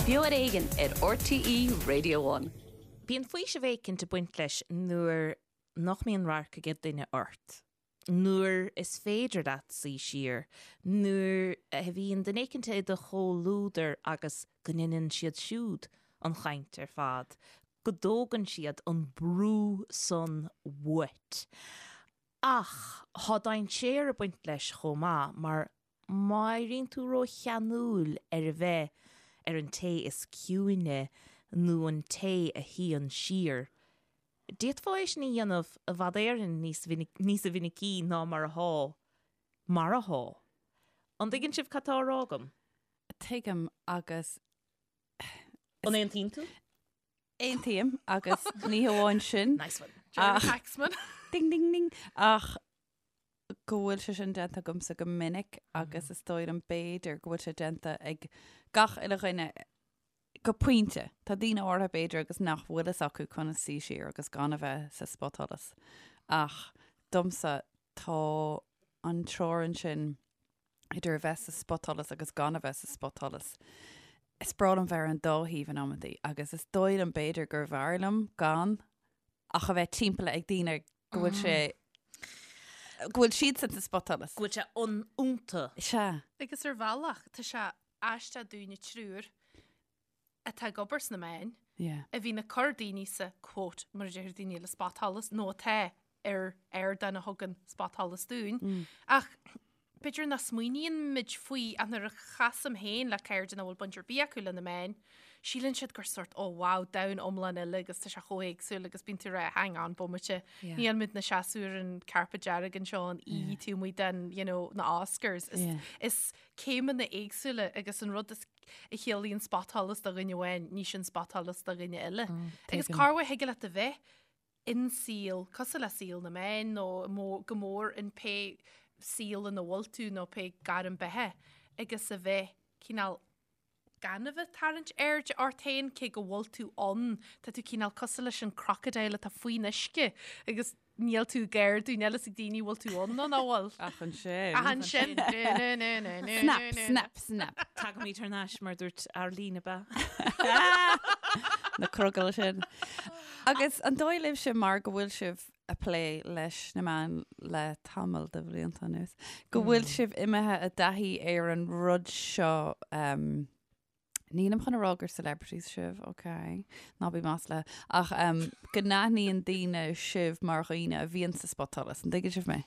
Beo ar Éigean ar RTÉ Radio One. Bíonn faoiseamh éicint ag baint leis nuair nach mbíonn radharc ag duine ort, nuair is féidir leat suí siar, nuair a bhíonn duine éicint i do chomhluadar agus go ndeineann siad siúd an chaint ar fad, go dtógann siad an brú san uait. Ach tá dainséar ag baint leis chomh maith mar má éiríonn tú rócheanúil ar a bheith ar an té is ciúine nó an té a shuíonn siar, d'fhéadfá é sin a dhéanamh i bhfad Éireann níos níosa mhinicí ná mar athá mar athá. An dtuigeann sibh cad tá á rá agam? Tuigim agus. An aontaíonn tú? Aontaím agus ní hamháin sin. Nice one. Jeremy Paxman. Ding ding ding. Ach go bhfuil sé sin déanta agamsa go minic agus is dóigh liom b'fhéidir go bhfuil sé déanta ag gach uile dhuine go pointe. Tá daoine áirithe b'fhéidir agus nach bhfuil fhios acu conas suí siar agus gan a bheith sa spotsholas. Ach domsa tá an teorainn sin idir a bheith sa spotsholas agus gan a bheith sa spotsholas. Is breá liom bheith ar an dá thaobh in amantaí agus is dóigh liom b'fhéidir gurbh fhearr liom gan ach a bheith timpeallaithe ag daoine go bhfuil sé go bhfuil siadsan sa spotsholas. Go bhfuil sé iontu. Sea. Agus ar bhealach, tá sé aisteach dúinne triúr atá ag obair sna meáin, a bhíonn ag cur daoine sa, quote, mar a deir daoine eile, spotsholas, nó atá ar ardán a thugann spotsholas dúinn. Ach b'fhéidir nach smaoiníonn muid faoi ach nuair a chasaim féin le cairde nach bhfuil baint ar bith acu le na meáin, síleann siad gur sort, oh wow, domhan iomlán eile agus tá sé chomh héagsúil agus bíonn tú ag rá, hang on, bomaite, níl muid inár seasamh ar an carpet dearg anseo an oíche taobh amuigh den, you know, na Oscars. Is, is céimeanna éagsúla agus an rud is a chiallaíonn spotsholas do dhuine amháin, ní sin spotsholas do dhuine eile. Agus corruair thig leat a bheith in saol, cosúil le saol na meán nó go mór in pé saol ina bhfuil tú nó pé gairm beatha agus a bheith cineál gan a bheith tarraingt airde ort féin cé go bhfuil tú ann, tá tú cineál cosúil leis an crocodile atá faoin uisce agus níl tú ag ardú, níl fhios ag daoine bhfuil tú ann nó nach bhfuil. Ach ansin. Ach ansin. Snap, snap, snap. Tagaimid thar n-ais mar dúirt Arlene ab ea? Na crogaill sin. Agus an dóigh libhse mar go bhfuil sibh ag plé leis na meáin le tamall de bhlianta anuas, go bhfuil sibh imithe i dtaithí ar an rud seo, nílim chun a rá gur celebrities sibh, ok, ná bí maslaithe, ach go n-aithníonn daoine sibh mar dhaoine a bhíonn sa spotsholas, an dtuigeann sibh mé?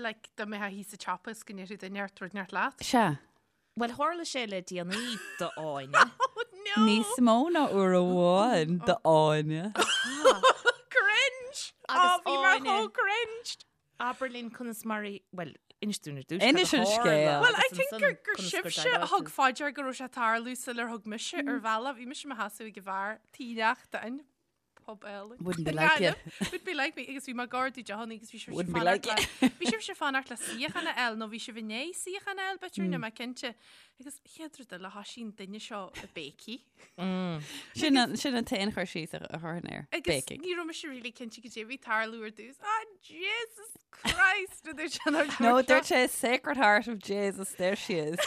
Like, dá mbeifeá thíos sa tsiopa is go ndéarfadh duine ort rud inteacht leat? Sea. Bhuel, tharla sé le déanaí d'Áine. Oh no! Níos mó ná uair amháin d'Áine. Cringe! Agus bhí mé chomh cringe! Abair linn conas mar a, bhuel, inis dúinn ar dtús Inis an scéal. Well, I think gur gur sibhse a thug fá dear go raibh sé ag tarlú sular thug mise ar bhealach. Bhí mise i mo sheasamh ag an bheár tí neachtain. Pub eile. Wouldn't be like you. Wouldn't be like me agus bhí mé ag ordú deochanna agus bhí sibhse Wouldn't be like you. Bhí sibhse fanacht le suíochán a fháil nó bhí sibh i ndiaidh suíochán a fháil b'fhéidir níl mé cinnte. Agus chéad rud eile thosaigh an duine seo ag béicigh. Sin an sin an t-aon chur síos a chuirfinn air. Agus Béicigh. ní raibh mise really cinnte goidé a bhí ag tarlú ar dtús. Ah Jesus Christ! A dúirt sé nuair a No, dúirt sé Sacred Heart of Jesus, there she is.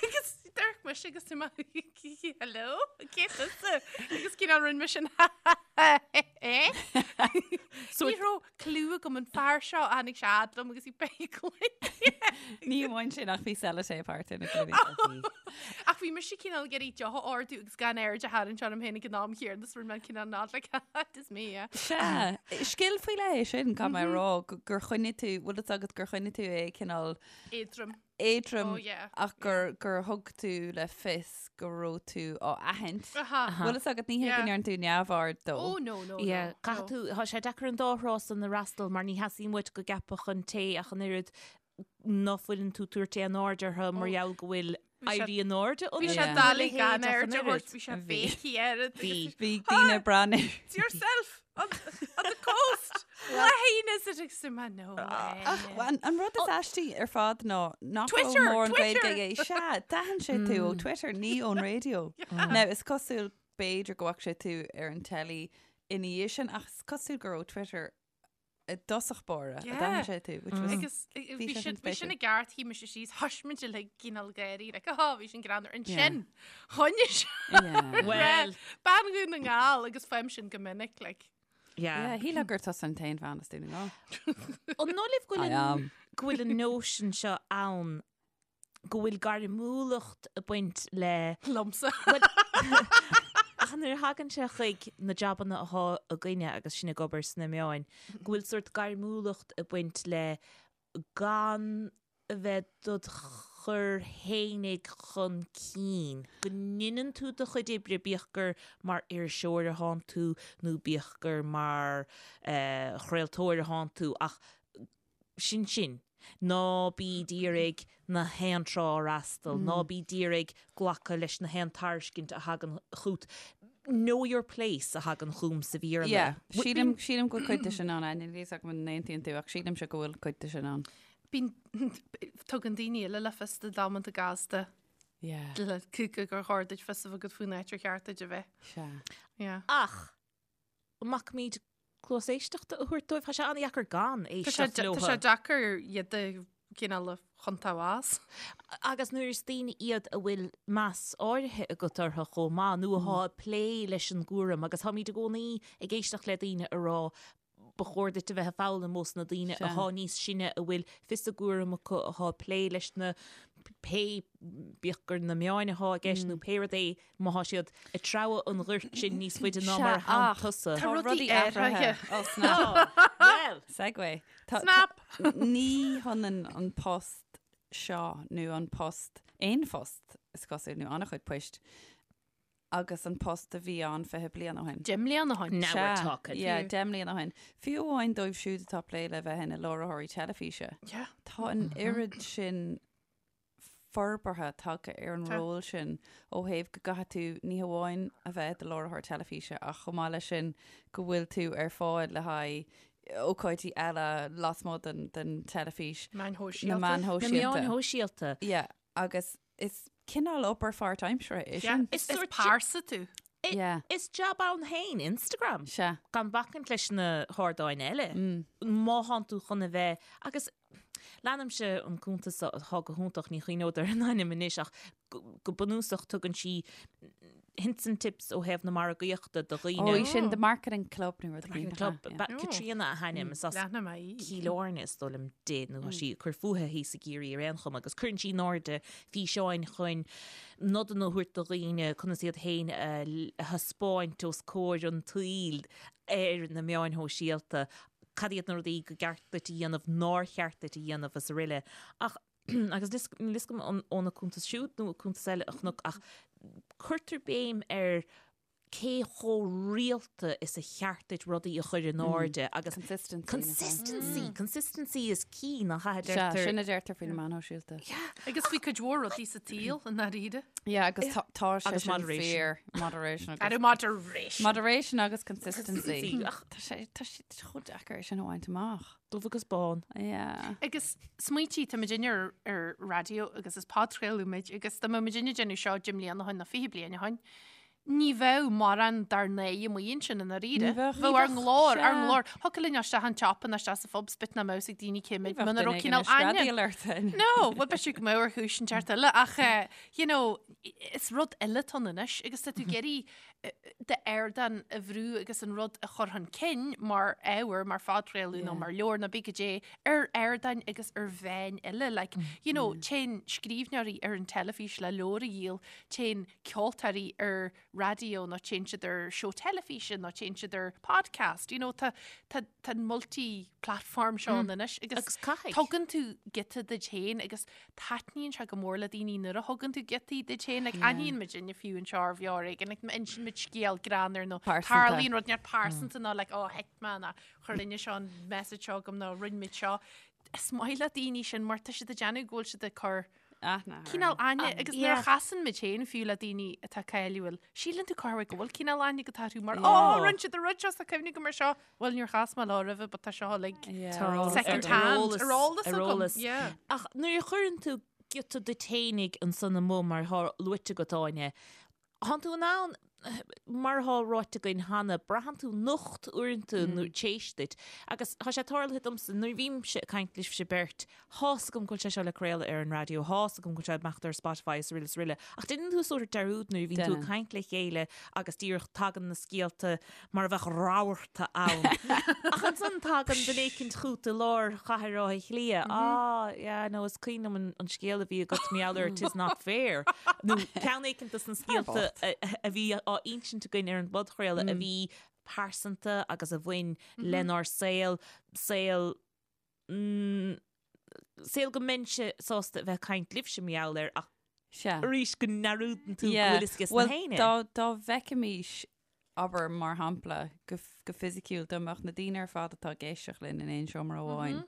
Agus d'amharc mise agus tú Hello? Cé tusa? Agus cineál rinne mise an eh? So ní raibh clue agam an fear seo tháinig sé fhad liom agus í béicigh. Ní amháin sin ach bhí sellotape thart ar na gloiní. Ach bhí mise cineál ag iarraidh deoch a ordú agus gan aird a tharraingt orm féin ag an am chéanna is rinne mé cineál nod like it is me, yeah. Sea, scil faoi leith é sin, caithfidh mé a rá, gur choinnigh tú, bhfuil fhios agat gur choinnigh tú é cineál Éadrom. éadrom Oh, yeah. ach gur, gur thug tú le fios go raibh tú á aithint. Aha. Bhfuil fhios agat ní hé go Yeah. ndearna tú neamhaird dó. Oh, no, no, Yeah, no. caithfidh tú, tá sé deacair an dá thrá san a fhreastal mar ní theastaíonn uait go gceapfadh an té ach an oiread ná fuileann tú tabhairt aon aird orthu mar Oh. gheall go bhfuil Bhí sé- éirí in airde Bhí sé Yeah. doiligh gan aird a thabhairt, bhí sé Bhí. béicigh air. Bhí. Bhí daoine ag breathnú. It's yourself on, on the coast. Lehain is it ag suim no. Ach an, an rud is aistí ar fad ná nach raibh Twitter, mórán Twitter! Gaeilge aige. Sea, d'aithin sé tú ó Twitter, ní ón raidió. Now, is cosúil b'fhéidir go bhfaca sé tú ar an teilí ina dhiaidh sin, ach is cosúil gur ó Twitter. i dtosach báire a d'aithin sé tú, which was Agus bhí sin bhí sin i gceart shuigh mise síos thoisigh muid uilig cineál gáirí like oh bhí sin greannmhar ansin choinnigh sé Well. bean Dhún na nGall agus faighim sin go minic like. Yeah. Yeah, shílfeá gur tusa an t-aon bhean as Dún na nGall. An dóigh libh go bhfuil I am. go bhfuil an nóisean seo ann go bhfuil gairmiúlacht ag baint le Liomsa. Bhuel, ach nuair a thagann sé chuig na jabanna athá againne agus sinn ag obair sna meáin, go bhfuil sórt gairmiúlacht ag baint le gan a bheith dod chur fhéinig chun cinn, go ndeineann tú do chuid oibre, bíodh gur mar iriseoir athánn tú nó bíodh gur mar chraoltóir athánn tú, ach sin sin. Ná bí d'iarraidh na haon trá a fhreastal, ná bí d'iarraidh glacadh leis na haon tairiscint a thagann chút. Know your place a thagann chugam sa Bhéarla. Yeah, sílim, sílim go bhfuil cuid de sin ann, Áine, níl a fhios agam an n-aontaíonn tú ach sílimse go bhfuil cuid de sin ann. Bíonn, tugann daoine eile le fios duit amanta gasta Yeah. le cúca gur chóir duit fios a bheith agat faoin áit ar cheart duit a bheith. Sea. Yeah. Ach, an mbacaimid cluas éisteachta a thabhairt dóibh? Tá sé an-dheacair gan Tá sé éisteacht tá leo. sé deacair iad a chineál a chontabhás. Agus nuair is daoine iad a bhfuil meas áirithe agat orthu chomh maith, nó athá ag plé leis an gcúram, agus táimid i gcónaí ag éisteacht le daoine a rá ba chóir duit a bheith ag foghlaim ós na daoine athá níos sine a bhfuil fios a gcúram acu, athá ag plé leis na pé, bíodh gur na meáin athá i gceist nó pé rud é, má thá siad ag treabhadh an ghoirt sin níos faide ná mar a thánn tusa. Tá rudaí athraithe. Oh, snap. Well! Segue. Tá- Snap! Ní hionann an post seo nó an post, aon phost is cosúil nó an-chuid poist, agus an post a bhí ann 20 bliain ó shin. 10 mbliana ó shin. Now we're talking. Yeah, 10 mbliana ó shin. Fiú amháin dóibh siúd atá ag plé le bheith ina láithreoirí teilifíse. Yeah. Tá an oiread sin forbartha tagtha ar an ról sin ó thaobh go gcaithfidh tú ní hamháin a bheith i do láithreoir teilifíse ach chomh maith leis sin go bhfuil tú ar fáil le haghaidh ócáidí eile lasmuigh den, den teilifís. Meáin Na shóisialta. meáin Na shóisialta. meáin shóisialta. Yeah, agus is cineál obair pháirtaimseartha é sin. Is sórt pearsa tú. Yeah. Is jab ann féin Instagram. Sea. Gan bacaint leis na hardáin eile. Má thánn tú chun a bheith, agus leanaimse an cuntas atá go hiontach, ní chuimhneod ar an ainm anois ach go bunúsach tugann sí hints and tips ó thaobh na margaíochta do dhaoine. Ó, í sin The Marketing Club nó rud Marketing Club. Caitríona a hainm, is as Leanfaidh mé í. Cill Airne is dóigh liom di, nó tá sí ag cur fúithi thíos i gCiarraí ar aon chuma, agus cuireann sí in airde físeáin chun nodanna a thabhairt do dhaoine conas iad féin a thaispeáint os comhair an tsaoil ar na meáin shóisialta, cad iad na rudaí go gceart duit a dhéanamh, nár cheart duit a dhéanamh is araile. Ach, agus níl fhios agam an óna cuntas siúd nó cuntas eile a chonac, ach cuirtear béim ar cé chomh rialta is a cheart duit rudaí a chur in airde agus Consistency. consistency, consistency is key nach ea a Sea, deirtear. sin a deirtear faoi na meáin shóisialta. Agus faoi cuid mhór rudaí sa tsaol i ndáiríre. Yeah, agus tá tá sé Agus sin moderation. fíor. Moderation agus Ar moderation. Moderation agus consistency. Consistency. Ach. Tá sé tá sé chomh deacair é sin a bhaint amach. Dubh agus bán. Yeah. Agus smaointigh, tá muidinne ar, ar raidió agus is podchraoladh muid agus dá mbeadh muidinne ag déanamh seo 10 mbliana ó shin nó 20 bliain ó shin, ní bheadh mórán dár n-aghaidh amuigh ansin i ndáiríre. Ní bheadh. Bheadh ár nglór, ár Sea. nglór. Thiocfadh linn isteach an tsiopa nó isteach sa phub 's bit nach mbeadh fhios ag daoine cé muid Ní bheadh muna duine raibh éigin cineál ag aithne. screadaíl ort féin. No, bhuel b'fhéidir go mbeadh ar chúis inteacht eile ach eh, you know, is rud eile atá ann anois agus tá tú ag iarraidh d'ardán a bhrú agus an rud a chur chun cinn mar ábhar, mar phodchraoladh nó mar leabhar nó cibé caidé, ar ardáin agus ar mheáin eile. Like, you know, téann scríbhneoirí ar an teilifís le leabhar a dhíol, téann ceoltóirí ar raidió nó téann siad ar seó teilifíse nó téann siad ar podcast. You know, tá, tá, tá an multi-platform seo ann anois agus Agus caithfidh. tugann tú giota duit féin agus taitníonn sé go mór le daoine nuair a thugann tú giotaí duit féin, like, aithníonn muidinne fiú anseo ar Bheo Ar Éigean, like, má insíonn muid scéal greannmhar nó Pearsanta. tarlaíonn rud neart pearsanta nó like, oh, thit mé nó chuir duine seo an message seo chugam nó rinne muid seo. Is maith le daoine sin mar tá siad ag déanamh go bhfuil siad ag cur Aithne. cineál aithne agus nuair a yeah. chasann muid féin fiú le daoine atá cáiliúil, síleann tú corruair go bhfuil cineál aithne agat orthu mar oh, rinne siad an rud seo 's tá cuimhne agam air seo. Bhuel, níor chas mé leo roimhe, but tá seo like second hand, ar eolas ar agam. eolas. Yeah. Ach nuair a chuireann tú giota duit fhéinig ansan amuigh mar atá luaite agat Áine, thánn tú in ann. Mar atá ráite againn cheana, braitheann tú nocht uaireanta nó t'éis duit. Agus tá sé tarlaithe domsa, nuair a bhímse ag caint libhse beirt, tá's agam go bhfuil sé seo le craoladh ar an raidió, tá's agam go bhfuil sé ag imeacht ar Spotify is araile is araile, ach déanann tú sórt dearúd nuair a bhíonn tú ag caint le chéile agus díreach tagann na scéalta mar a bheadh rabharta ann. Ach ansan tagann duine éicint chút i lár chathair Átha Cliath, ah, yeah, no, is cuimhin liom an scéal a bhí agat mar gheall ar 'Tis not fair. Nó ceann éicint dos na scéalta a bhí á insint againn ar an bpodchraoladh a bhí pearsanta agus a bhain lenár saol, saol, saol go mbeinnse sásta a bheith ag caint libhse mar gheall air ach Sea. arís go ndearúdann tú go bhfuil fhios aige Bhuel, na héinne. dá, dá bhfeicfimis, abair, mar shampla, go, go fisiciúil, dá mbeadh na daoine ar fad atá ag éisteacht linn in aon seomra amháin,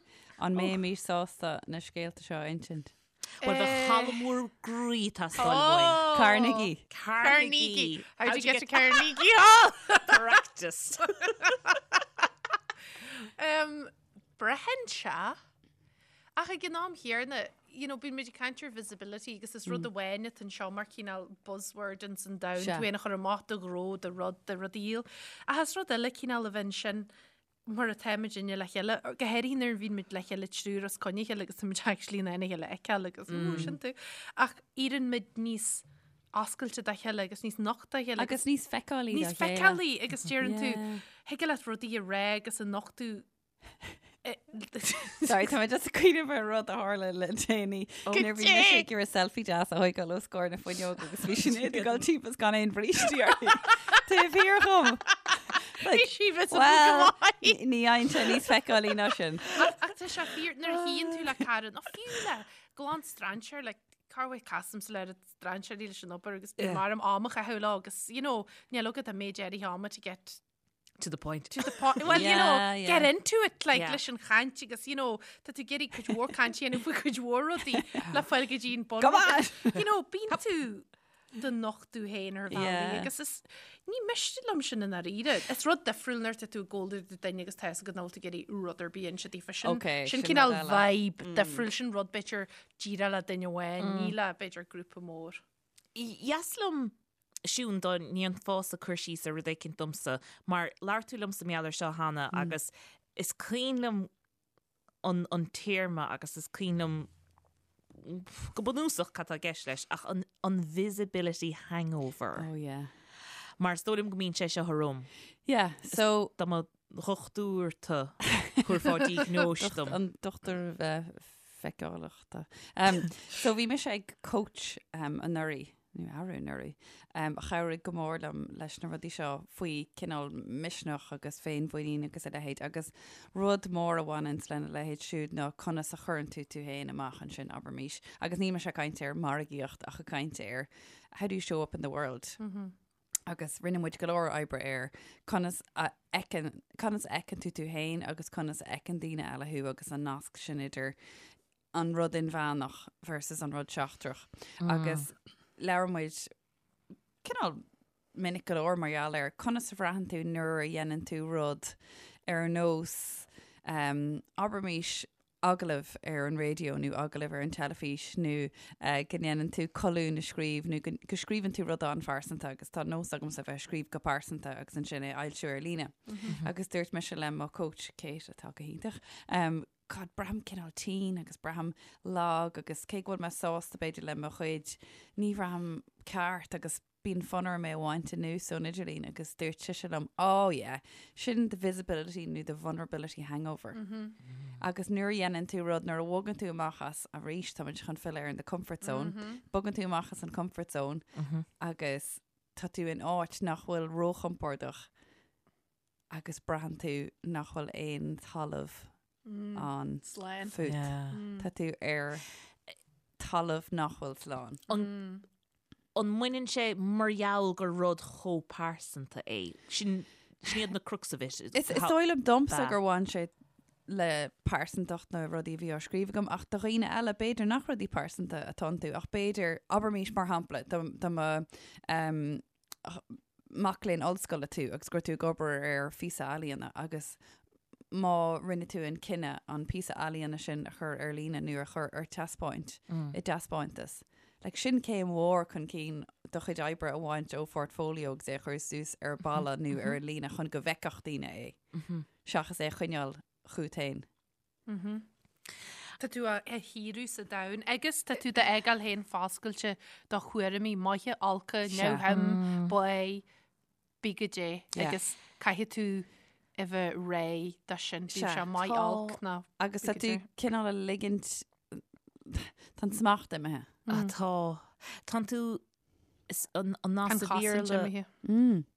an mbeimis sásta na scéalta seo a insint? Bhuel, bheadh halla mór groí ag teastáil uainn. Carnegie. Carnegie. How'd you get to Carnegie Hall? Practice. Um, Braitheann sé. Ach ag an am chéanna, you know, bíonn muid ag caint ar visibility agus is rud amháin atá anseo mar cineál buzzword ins an domhan, Sea. tú féin a chur amach do ghnó, do rud, do rud a dhíol. Ach is rud eile cineál a bheith ansin mar atá muidinne le chéile, go háirithe nuair a bhíonn muid le chéile triúr os coinne a chéile agus tá muid actually in ann a chéile a fheiceáil agus mm. sin tú. Ach éiríonn muid níos oscailte dá chéile agus níos nochta dá chéile. Agus níos feiceálaí níos feiceálaí agus deireann tú, thig leat rudaí a rá agus a nochtadh Sorry, tá mé just ag cuimhneamh ar rud a tharla le déanaí. Nuair a bhí mise ag iarraidh selfie deas a thógáil os comhair na fuinneoige agus bhí Sinéad ag dul timpeall is gan aon bhrístí uirthi. Taobh thiar dhom. Bhí sí visible Well, go maith. ní fhaigheann sé níos feiceálaí ná sin. Ach tá sé fíor nuair a shuíonn tú le cara nó fiú le glan strainséir like corruair casaimse le strainséirí leis an obair agus bíonn orm am a chaitheamh leo agus you know níl agat an méid áirithe ama to get To the point. to the point. Well, you know, Yeah, yeah. get into it like Yeah. leis an chaint agus you know, tá tú ag iarraidh cuid mhór cainte a dhéanamh faoi cuid mhór rudaí le fáil go dtí an bun. Come on! You know, bíonn tú do nochtadh féin ar bhealaí Yeah. agus is ní miste liom sin i ndáiríre. Is rud difriúil nuair atá tú ag gabháil le duine agus tá a fhios agat nach bhfuil tú ag iarraidh rud ar bith a inse daofa sin. Okay, sin sin cineál rud eile. vibe difriúil, sin rud b'fhéidir díreach le duine amháin, ní le b'fhéidir grúpa mór. Dheas liom Siún dá ndéanfása cur síos ar rud éicint domsa, mar labhair tú liomsa mar gheall air seo cheana agus is cuimhin liom an an téarma agus is cuimhin liom go bunúsach cad tá i gceist leis ach an an visibility hangover. Oh yeah. Mar is dóigh liom go mbíonn sé seo orm. Yeah, so Dá mba dhochtúir tú thabharfá diagnóis dom. An dochtúir feiceálachta. So bhí mise ag coach um, anuraidh, nó arú anuraidh, um, a chabhraigh go mór liom leis na rudaí seo faoi cineál misneach agus féinmhuinín agus a leithéid agus rud mór a bhaineanns lena leithéid siúd ná conas a chuireann tú tú féin amach ansin, abraimis. Agus níl mise ag caint ar margaíocht ach ag caint ar how do you show up in the world? Mm -hmm. Agus rinne muid go leor oibre ar conas a fheiceann, conas a fheiceann tú tú féin agus conas a fheiceann daoine eile thú agus an nasc sin idir an rud inmheánach versus an rud seachtrach. Agus labhair muid cineál minic go leor mar gheall ar conas a bhraitheann tú nuair a dhéanann tú rud ar nós um, abraimis agallamh ar an raidió nó agallamh ar an teilifís nó go ndéanann tú colún a scríobh nó go scríobhann tú rud an-phearsanta agus tá nós agamsa a bheith ag scríobh go pearsanta agus ansin é a fhoilsiú ar líne. Agus dúirt mise le mo coach Kate atá go hiontach, um, God, braithim cineál tinn agus braithim lag agus cé go bhfuil mé sásta b'fhéidir le mo chuid, ní bhraithim ceart agus bíonn fonn orm é a bhaint anuas ón idirlíon agus dúirt sise liom, oh yeah, sin the visibility nó the vulnerability hangover. Agus nuair a dhéanann tú rud, nuair a bhogann tú amach as, arís táimid chun filleadh ar an the comfort zone, bogann tú amach as an comfort zone agus tá tú in áit nach bhfuil róchompordach agus braitheann tú nach bhfuil aon talamh ann Slán. fút. Tá tú ar talamh nach bhfuil slán. An mbaineann sé mar gheall gur rud chomh pearsanta é? Sin sin iad na crux of it. Is is dóigh liom domsa gur bhain sé le pearsantacht na rudaí a bhí á scríobh agam ach do dhaoine eile b'fhéidir nach rudaí pearsanta atá iontu ach b'fhéidir, abraimis mar shampla, dá mba um, mac léinn ollscoile tú agus go raibh tú ag obair ar phíosa ealaíona agus má rinne tú an cinneadh an píosa ealaíona sin a chur ar líne nó a chur ar taispeáint i dtaispeántas. Like, sin céim mhór chun cinn do chuid oibre a bhaint ó phortfolio agus é a chur suas ar balla nó ar an líne chun go bhfeicfeadh daoine é, seachas é a choinneáil chugat féin. Tá tú á shaoradh sa domhan agus tá tú d'fhágáil féin foscailte do thuairimí maithe, olca, neamhshuim, báidh, bí goidé agus caithfidh tú a bheith réidh dó sin, bíodh sé maith, olc nó Agus tá tú cineál a ligint, tá an smacht imithe. Ah tá. Tánn tú, an nath sa Bhéarla,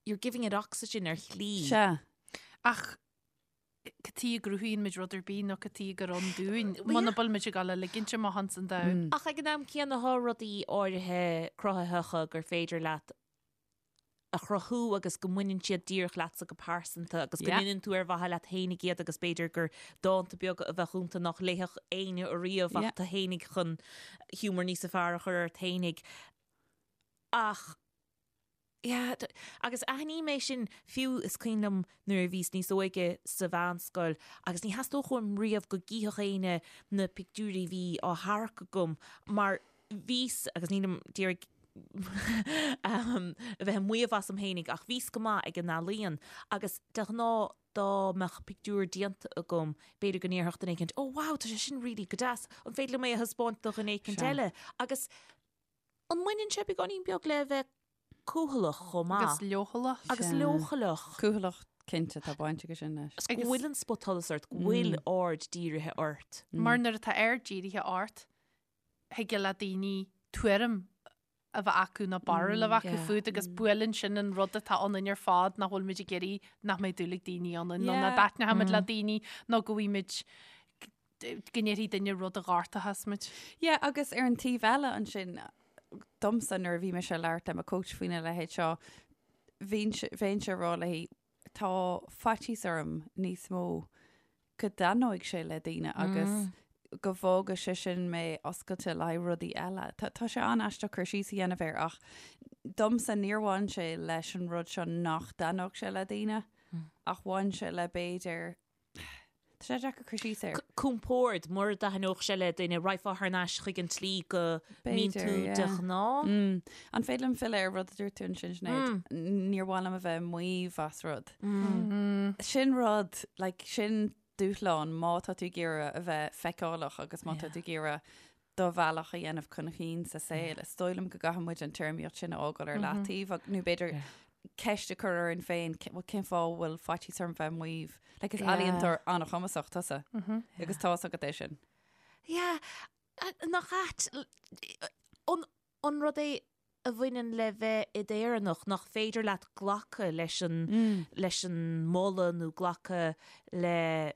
you're giving it oxygen ar shlí. Sea. Ach cad chuige a gcruthaíonn muid rud ar bith nó cad chuige gur ann dúinn, muna bhfuil muid ag dul a ligint amach ins an domhan. Ach ag an am céanna tá rudaí áirithe cruthaitheacha gur féidir leat a chruthú agus go mbaineann siad díreach leatsa go pearsanta agus go ndéanann tú ar mhaithe leat fhéinig iad agus b'fhéidir gur dánta beaga a bheadh iontu nach léifeadh éinne ariamh ach tú fhéinig chun humour níosa fearr a chur ort fhéinig. Ach yeah, agus aithním é sin fiú is cuimhin liom nuair a bhíos níos óige sa mheánscoil agus ní theastódh uaim riamh go gcífeadh éinne na pictiúirí a bhí á tharrac agam mar bhíos, agus nílim d'iarraidh a bheith ag maíomh asam fhéinig, ach bhíos go maith ag an ealaíon agus de ghnáth dá mbeadh pictiúr déanta agam, b'fhéidir go ndéarfadh duine éicint, oh wow, tá sé sin really go deas, an féidir liom é a thaispeáint do dhuine éicint eile? Agus an mbaineann sé beagáinín beag le bheith cúthaileach chomh maith? Agus leochaileach. Agus leochaileach. Cúthaileach, cinnte, tá baint aige sin leis. Go bhfuil an spotsholas ort, go bhfuil aird dírithe ort. Mar nuair atá aird dírithe ort, thig le daoine tuairim a bheith acu nó barúil a bheith acu fút agus buaileann sin an rud atá ionainn ar fad nach bhfuil muid ag iarraidh nach mbeidh dúil ag daoine ionainn nó nach dtaitneoidh muid le daoine nó go bhfuil muid go ndéarfaidh duine rud a ghortóchas muid. Yeah, agus ar an taobh eile ansin, domsa nuair a bhí mise ag labhairt le mo coach faoina leithéid seo, bheinnse ag rá léi, tá faitíos orm níos mó go dtaitneoidh sé le daoine agus go bhfágfaidh sé sin mé oscailte le haghaidh rudaí eile. Tá tá sé an-aisteach cur síos a dhéanamh air ach domsa níor bhain sé leis an rud seo nach dtaitneodh sé le daoine ach bhain sé le b'fhéidir Tá sé deacair cur síos air. Compord, mura dtaitneodh sé le duine, raghfá thar n-ais chuig an tslí go mbíonn tú de ghnáth. An féidir liom filleadh ar rud a dúirt tú ansin, Sinéad? Níor mhaith liom a bheith ag maíomh as rud. Sin rud, like, sin dúshlán má tá tú ag iarraidh a bheith feiceálach agus má tá tú ag iarraidh do bhealach a dhéanamh chun chinn sa saol. Is dóigh liom go gcaithfidh muid an téarmaíocht sin a fhágáil ar leataobh ag- nó b'fhéidir ceist a chur orainn féin, ce- bhuel, cén fáth a bhfuil faitíos orm bheith ag maíomh? Like, is ealaíontóir an-chumasach tusa agus tá's agat é sin. Yeah, a- nach ait, l- an, an rud é a bhaineann le bheith i d'Éireannach nach féidir leat glacadh leis an, leis an moladh nó glacadh le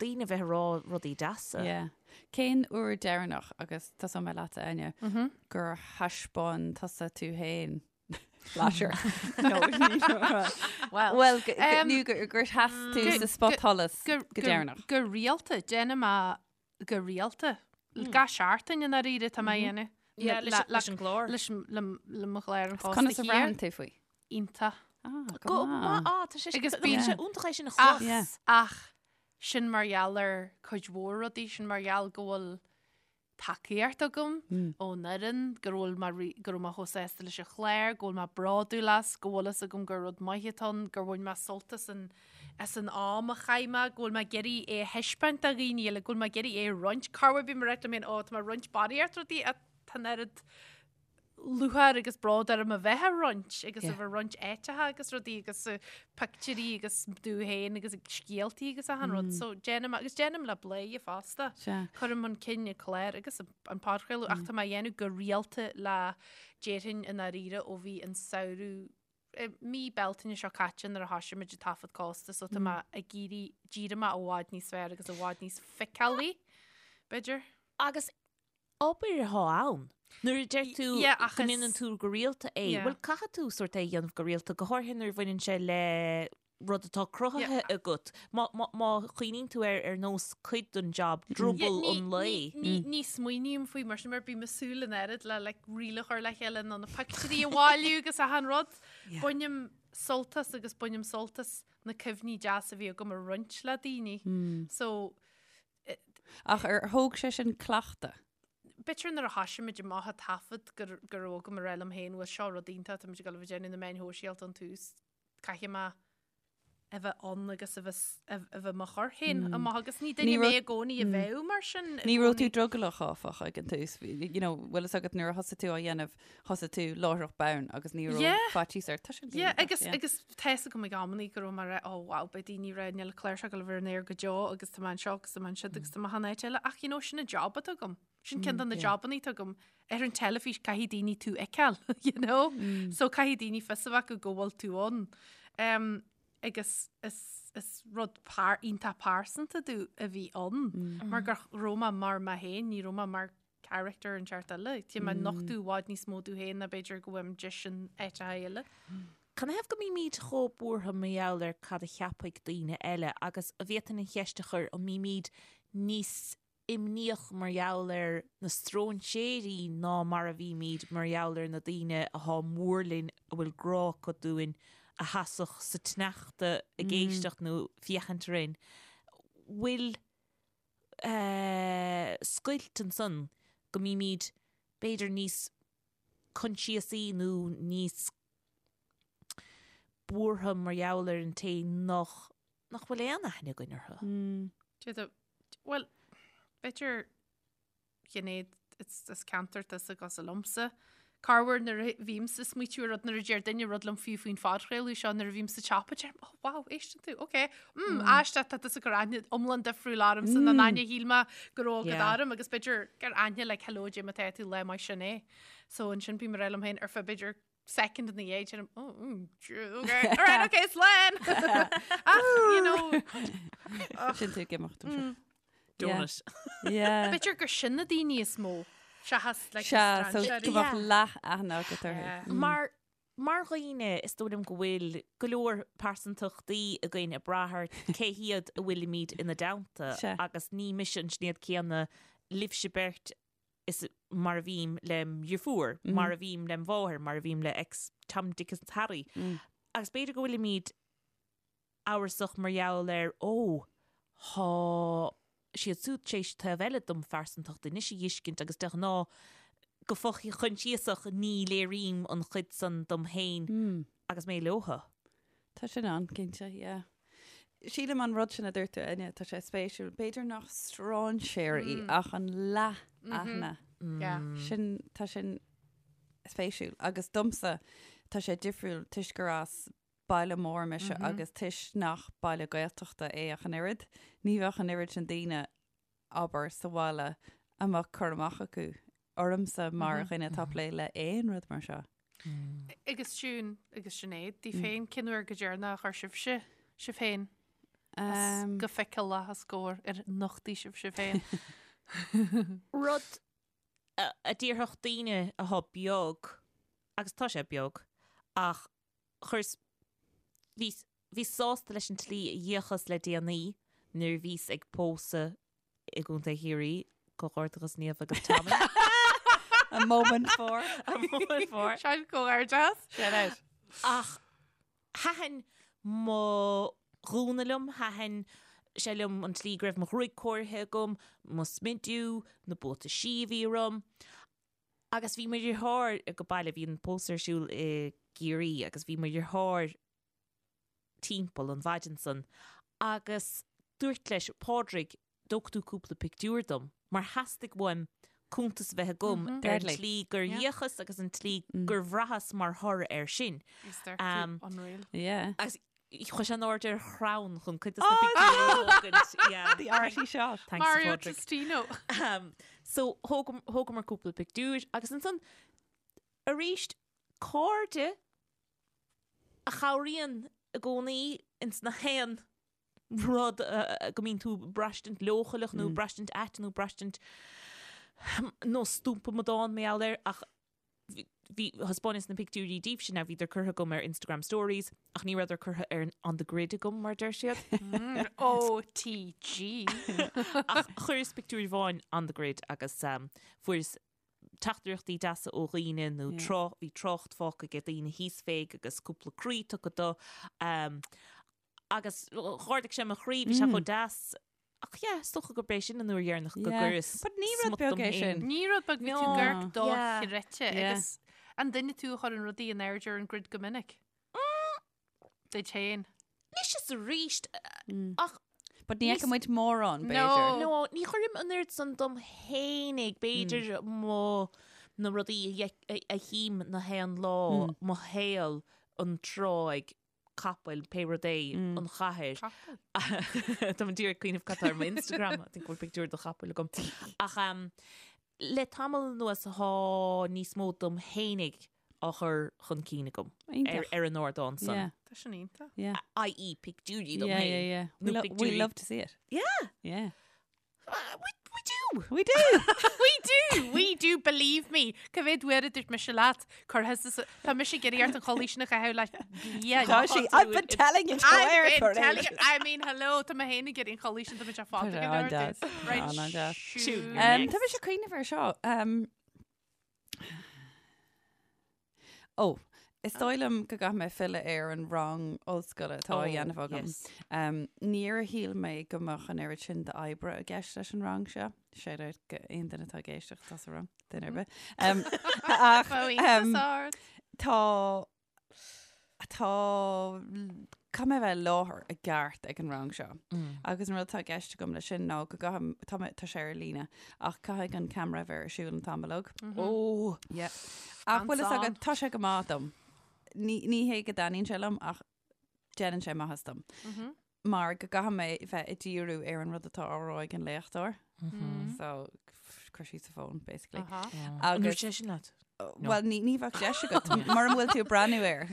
daoine a bheith ag rá rudaí deasa. Yeah. Cén uair deireanach, agus tosóidh mé leatsa Áine, gur thaispeáin tusa tú féin flasher? No, Well, Well, nó gur sheas tú sa spotsholas go deireanach. Go rialta, déanaim é go rialta. Gach seachtain i ndáiríre tá mé a dhéanamh. Yeah, leis an gclár. Leis le mo chlár an Cósta Conas a bhraitheann tú faoi? Iontach. Ah, go maith. Ah, tá sé Agus bíonn sé iontach é sin a chlos. Ach sin mar gheall ar cuid mhór rudaí, sin mar gheall go bhfuil tacaíocht agam ón fhoireann, go bhfuil mé go raibh mé chomh sásta leis an chlár, go bhfuil mé bródúil as, go bhfuil fhios agam gur rud maith atá ann, gur bhain mé sult as an as an am a chaith mé, go bhfuil mé ag iarraidh é a thaispeáint do dhaoine eile, go bhfuil mé ag iarraidh é a roinnt. Corruair bím ag rá liom féin, ó, tá mé ag roinnt barraíocht rudaí ach tá an oiread lúcháir agus bród orm a bheith á roinnt agus a bheith ag roinnt áiteacha agus rudaí agus pictiúirí agus domh féin agus scéaltaí agus achan rud. So déanaim agus déanaim le Bladhaire fosta. Cuirim chun cinn an clár agus an podchraoladh ach tá mé á dhéanamh go rialta le déarfainn i ndáiríre ó bhí an samhradh mí Bealtaine seo caite nuair a thosaigh muid ag taifead Cósta so tá mé ag iarraidh d'éirigh mé i bhfad níos fearr agus i bhfad níos feiceálaí, b'fhéidir. Agus obair atá ann. Nuair a deir tú go ndéanann tú go rialta é, bhuel caithfidh tú sórt é a dhéanamh go rialta, go háirithe nuair a bhaineann sé le rud atá cruthaithe agat. Má chuimhníonn tú air ar nós cuid den job, druball an lae. Ní smaoiním faoi mar sin mar bím ag súil an oiread le like reel a chur le chéile nó na pictiúirí a bhailiú agus achan rud. Bainim sult as agus bainim sult as na cuimhní deasa a bhí agam a roinnt le daoine. So Ach ar thóg sé sin cleachtadh? B'fhéidir nuair a thoisigh muid amach ag taifead go go raibh agam a rá liom féin bhuel seo rud iontach tá muid ag dul a bheith ag déanamh na meáin shóisialta ón tús, caithfidh mé a bheith ann agus a bheith a bheith mo chur féin amach agus ní duine mé i gcónaí a bheadh mar sin. Ní raibh tú drogallach áfach ag an tús, you know, bhfuil fhios agat nuair a thosaigh tú á dhéanamh, thosaigh tú láithreach bonn agus ní raibh faitíos ort. Tá sin Yeah, agus agus tá fhios agam ag amannaí go raibh mé ag rá, oh wow, beidh daoine ag rá níl an clár seo ag dul a bheith ar an aer go deo agus tá mé anseo agus tá mé ansiúd agus tá mé achan áit eile ach you know, sin an job atá agam. Sin ceann de na jobannaí atá agam. Ar an teilifís caithfidh daoine tú a fheiceáil, you know? So caithfidh daoine fios a bheith acu go bhfuil tú ann. Um, agus is, is rud par, iontach pearsanta domh a bhí ann. Mar go raibh mé mar mé féin, ní raibh mé mar character inteacht eile. Tá mé ag nochtadh i bhfad níos mó domh féin ná b'fhéidir go bhfuilim deis in áiteacha eile. Canathaobh go mbímid chomh buartha mar gheall ar cad a cheapfaidh daoine eile agus an bhféadfainn an cheist a chur an mbímid níos imníoch mar gheall ar na stróinséirí ná mar a bhímid mar gheall ar na daoine athá mór linn a bhfuil grá acu dúinn a sheasfadh sa tsneachta ag éisteacht nó féachaint orainn. Bhfuil scoilt ansan go mbímid b'fhéidir níos coinsiasaí nó níos buartha mar gheall ar an té nach nach bhfuil aon aithne againn orthu. D'fhéadfadh, bhuel, b'fhéidir Sinéad, is ceantar tusa cosúil liomsa. Corruair nuair a bhímse ag smaoitiú ar rud nuair a deir duine rud liom fiú faoin phodchraoladh seo nuair a bhím sa tsiopa deirim, oh wow, éisteann tú, ok, mm, aisteach tá tusa ag cur aithne iomlán difriúil ormsa ná an aithne a shíl mé go raibh agat orm agus b'fhéidir gur aithne like hello cad é mar atá tú lá maith sin é. So ansin bím ag rá liom féin ar feadh b'fhéidir second ina dhiaidh deirim, oh, mm, okay, all right, okay, slán! Ach, you know, Sin tú ag imeacht anseo. Donut. Yeah. B'fhéidir gur sin na daoine is mó seachas like, Sea, so strainséirí. go mbeadh leath aithne agat orthu. Yeah. Mar mar dhaoine is dóigh liom go bhfuil go leor pearsantachtaí againn ag brath ar cé hiad a bhfuilimid ina dteannta Sea. agus ní mise an Sinéad céanna libhse beirt is mar a bhím lem dheirfiúr, mar a bhím lem mháthair, mar a bhím le X Tom, Dick is Harry. Agus b'fhéidir go bhfuilimid amhrasach mar gheall ar, ó, thá siad súd tar éis taobh eile dom phearsantacht anois a dh'fheiscint agus de ghnáth go fo-choinsiasach ní léirím an chuid san dom féin agus mé leotha. Tá sin ann, cinnte, yeah. Sílim an rud sin a dúirt tú, Áine, tá sé spéisiúil. B'fhéidir nach stráinséirí ach an leath-aithne. Yeah. Sin, tá sin spéisiúil. Agus domsa, tá sé difriúil toisc gur as baile mór mise agus toisc nach baile Gaeltachta é ach an oiread. Ní bheadh an oiread sin daoine, abair, sa bhaile a mbeadh cur amach acu ormsa mar dhuine atá ag plé le aon rud mar seo. Agus Siún agus Sinéad, daoibh féin, cén uair go deireanach a chuir sibhse sibh féin as go feiceálach os comhair ar nochtaigh sibh sibh féin? Rud a déarfadh daoine athá beag, agus tá sé beag, ach chuireas, bhíos, bhíos sásta leis an tslí a d'fhéachas le déanaí nuair a bhíos ag pósadh i gContae Chiarraí, comhghairdeachas Niamh agus Tommy. A moment for. A moment for. Sin comhghairdeas. Shout out. Ach thaitin mo ghúna liom, thaitin sé liom an tslí go raibh mo ghruaig cóirithe agam, mo smidiú, na buataisí a bhí orm. Agus bhí mo dheartháir ag baile, bhí an pósadh ar siúl i gCiarraí agus bhí mo dheartháir timpeall an mhaidin san agus dúirt leis, Pádraig, dtógfaidh tú cúpla pictiúr dom, mar theastaigh uaim cuntas a bheith agam ar an tslí gur fhéachas agus an tslí gur bhraitheas mar thoradh air sin. Unreal. Yeah. Agus chuaigh sé in airde ar chrann chun cuid de na pictiúirí a thógaint. Yeah. The arty shot. Thanks, Mario Pádraig. Testino. So thógamar cúpla pictiúr agus ansan arís cairde a chabhraíonn i gcónaí ins na haon rud go mbíonn tú braistint leochaileach nó braistint ait nó braistint nó stumpa amadán mar gheall air ach bhí thaispeáineas na pictiúirí daoibhse now bhíodar curtha agam ar Instagram stories ach ní rabhadar curtha ar an on the grid agam mar deir siad. OTG. Ach chuireas pictiúr amháin on the grid agus fuaireas teachtaireachtaí deasa ó dhaoine nó tráth, bhí trácht fágtha ag daoine thíos féig agus cúpla croí tugtha do. Agus dh'ardaigh sé mo chroí, bhí sé chomh deas. Ach yeah, is dócha gurb é sin an uair dheireanach go Yeah. gcuireas But ní rud smut beag dom é féin. sin. Ní rud beag bhí tú No. ag amharc Yeah. dochreidte Yeah. agus an duine tú a chuireann rudaí in airde ar an grid go minic. Duit féin. Anois is arís, ach But ní fheiceann muid mórán, No. b'fhéidir. No, ní chuirim an oiread san dom fhéinig, b'fhéidir mo na rudaí a a- a chím na haon lá, mo shaol, an tráigh, capaill, pé rud é, an chathair. Capall. Tá mé díreach ag cuimhneamh cad tá ar mo Instagram, I think go bhfuil pictiúr de chapall agam. Ach um, le tamall anuas tá níos mó dom fhéinig á chur chun cinn agam ar, Iontach. ar an ardán san. Yeah, Tá sin iontach. yeah. I.e. pictiúirí dom Yeah, féin. yeah, yeah. We, Nó lo we pictiúirí- love to see it. Yeah. Yeah. Uh, we, we do. We do. We do, we do, believe me. Cá mhéad uair a dúirt mise leat, cuir thusa sa- tá mise ag iarraidh ort an chulaith sin a chaitheamh le bliain. Tá sí, I've been telling you to wear I've it been for telling ages. you, I mean, hello, tá mé féin ag iarraidh an chulaith sin, tá mé fada Tá sé go leor an-deas. duit. Right, An-deas. shoot. Um, tá mise ag cuimhneamh ar seo. Um, Ó, is dóigh liom go gcaithfidh mé filleadh ar an rang ollscoile atá á Oh, dhéanamh agam. yes. Um, níor shíl mé go mbeadh an oiread sin d'oibre i gceist leis an rang seo. Shout out go aon duine atá ag éisteacht atá sa rang, duine ar bith. Um, ach, Bheadh um, iontas ort. tá tá caithfidh mé bheith i láthair i gceart ag an rang seo. Agus an rud atá i gceist agam leis sin ná go gcaithfidh tá mé tá sé ar líne ach caithfidh an ceamara bheith ar siúl an t-am uilig. Ó, Yeah. Ach bhfuil fhios Hands agat tá sé go maith dom. Ní ní hé go dtaitníonn sé liom ach déanann sé maitheas dom. Mar go gcaithfidh mé bheith ag díriú ar an rud atá á rá ag an léachtóir. So cuir síos an fón basically. Aha. an Agus dúirt sé sin leat? Well, ní ní bheadh deis agat mura bhfuil tú ag breathnú air.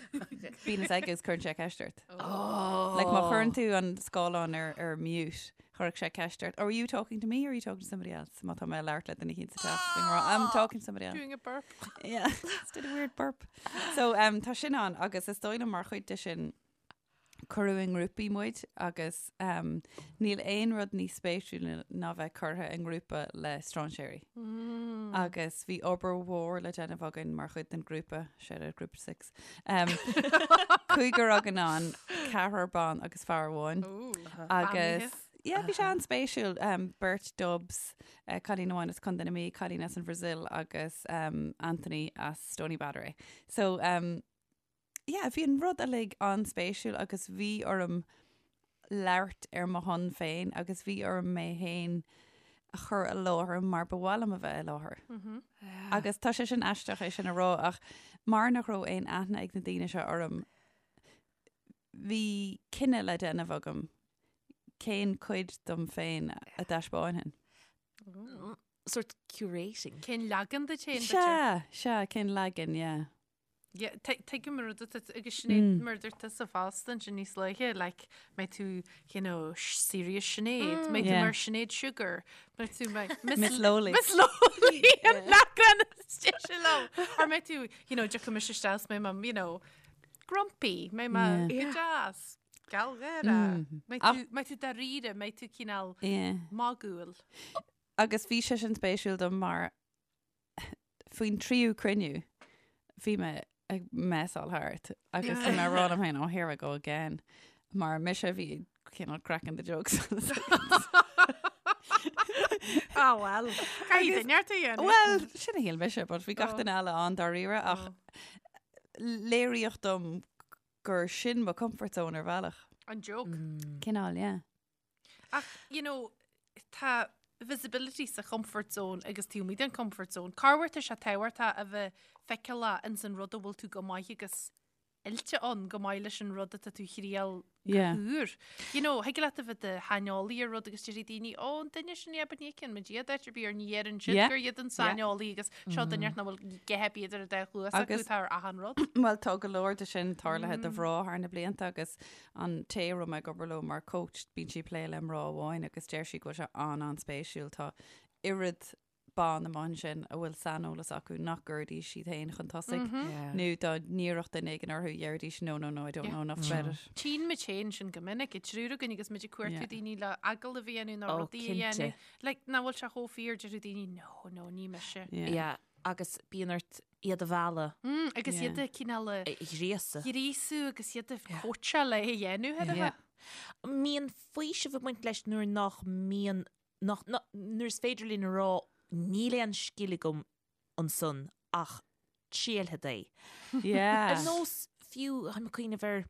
Bíonn fhios aige is cuireann sé ceist ort. Like má chuireann tú an scáileán ar ar mute, chuirfeadh sé ceist ort. Are you talking to me or are you talking to somebody else? Má tá mé ag labhairt le duine éicint sa teach. Bím ag rá, I'm talking to somebody else. Doing a burp. Yeah, just did a weird burp. So um, tá sin ann agus is dóigh liom mar chuid de sin cuireadh i ngrúpaí muid agus um, níl aon rud níos spéisiúla ná bheith curtha i ngrúpa le strainséirí. Mm. Agus bhí obair mhór le déanamh againn mar chuid den grúpa, shout out Group 6. Um, cúigear againn ann, ceathrar ban agus fear amháin. Agus yeah, bhí sé an-spéisiúil um, beirt Dubs, uh, cailín amháin as Contae na Mí, cailín as an Brazil agus um, Anthony as Stoneybatter. So um, yeah, bhí an rud uilig an-spéisiúil agus bhí orm labhairt ar mo shon féin agus bhí orm mé féin a chur i láthair mar ba mhaith liom a bheith i láthair. Agus tá sé sin aisteach é sin a rá ach mar nach raibh aon aithne ag na daoine seo orm, bhí cinneadh le déanamh agam cén cuid dom féin a dtaispeánfainn. Sort curating. Cén leagan díot féin? Sea, sea, cén leagan, yeah. Yeah, tuigim an rud atá agus Sinéad mar dúirt tusa fosta ansin níos luaithe, like, mbeidh tú, you know, serious Sinéad, mbeidh tú Yeah. mar Sinéad Sugar, mbeidh tú mar Miss Lowly. Miss Lowly an leagan is deise liom. Or mbeidh tú, you know, tiocfaidh mise isteach is mbeidh mé, you know, grumpy, mbeidh mé go deas, gealgháireach. Mbeidh tú, mbeidh tú dáiríre, mbeidh tú cineál Yeah. magúil. Agus bhí sé sin spéisiúil dom mar faoin tríú cruinniú bhí mé ag messáil thart agus bhí mé ag rá liom féin, oh here I go again, mar mise a bhí cineál cracking the jokes. Ah well, caithfidh duine ort a dhéanamh. Well, sin a shíl mise, but bhí gach duine eile an-dáiríre ach léiríodh dom gur sin mo comfort zone ar bhealach. An joke. Cineál, yeah. Ach, you know, tá visibility sa comfort zone agus taobh amuigh den comfort zone. Corruair tá sé tábhachtach a bheith feiceálach ins an rud a bhfuil tú go maith agus oilte ann go maith leis an rud atá tú a thriail go Yeah. húr. You know, thig leat a bheith i do shaineolaí ar rud agus déarfaidh daoine, ó, an duine sin, yeah, but ní fheiceann muid iad áit ar bith or ní dheireann siad Yeah. gur iad an saineolaí agus seo duine nach bhfuil a dhath ar bith idir an dá chluas acu Agus- atá ar achan rud. Bhuel, tá go leor de sin tarlaithe do mhná thar na blianta agus An té a raibh mé ag obair leo mar coach, bíonn sí ag plé le mná amháin agus deir sí go bhfuil sé an-an-spéisiúil. Tá oiread ban amuigh ansin a bhfuil saineolas acu nach gcuirfidís siad féin chun tosaigh nó dá n-iarrfadh duine éigin orthu déarfaidís no, no, no, I don't know enough about it. Tchíonn muid féin sin go minic, an triúr againn agus muid ag cuartú Yeah. daoine le agallamh a dhéanamh nó Oh, rudaí a dhéanamh. cinnte. Like, nach bhfuil sé chomh fíor deir daoine no, no, ní mise. Yeah. Yeah, agus bíonn ort iad a mhealladh. Agus Yeah. iad a cineál a A ghríosadh. ghríosú agus iad a chóitseáil é a dhéanamh, ar a Yeah. bheith. Mbíonn faoiseamh ag baint leis nuair nach mbíonn, nach, nuair is féidir linn a rá níl aon scil agam ansan ach triailfead é. Yeah. Ar nós fiú, táim ag cuimhneamh ar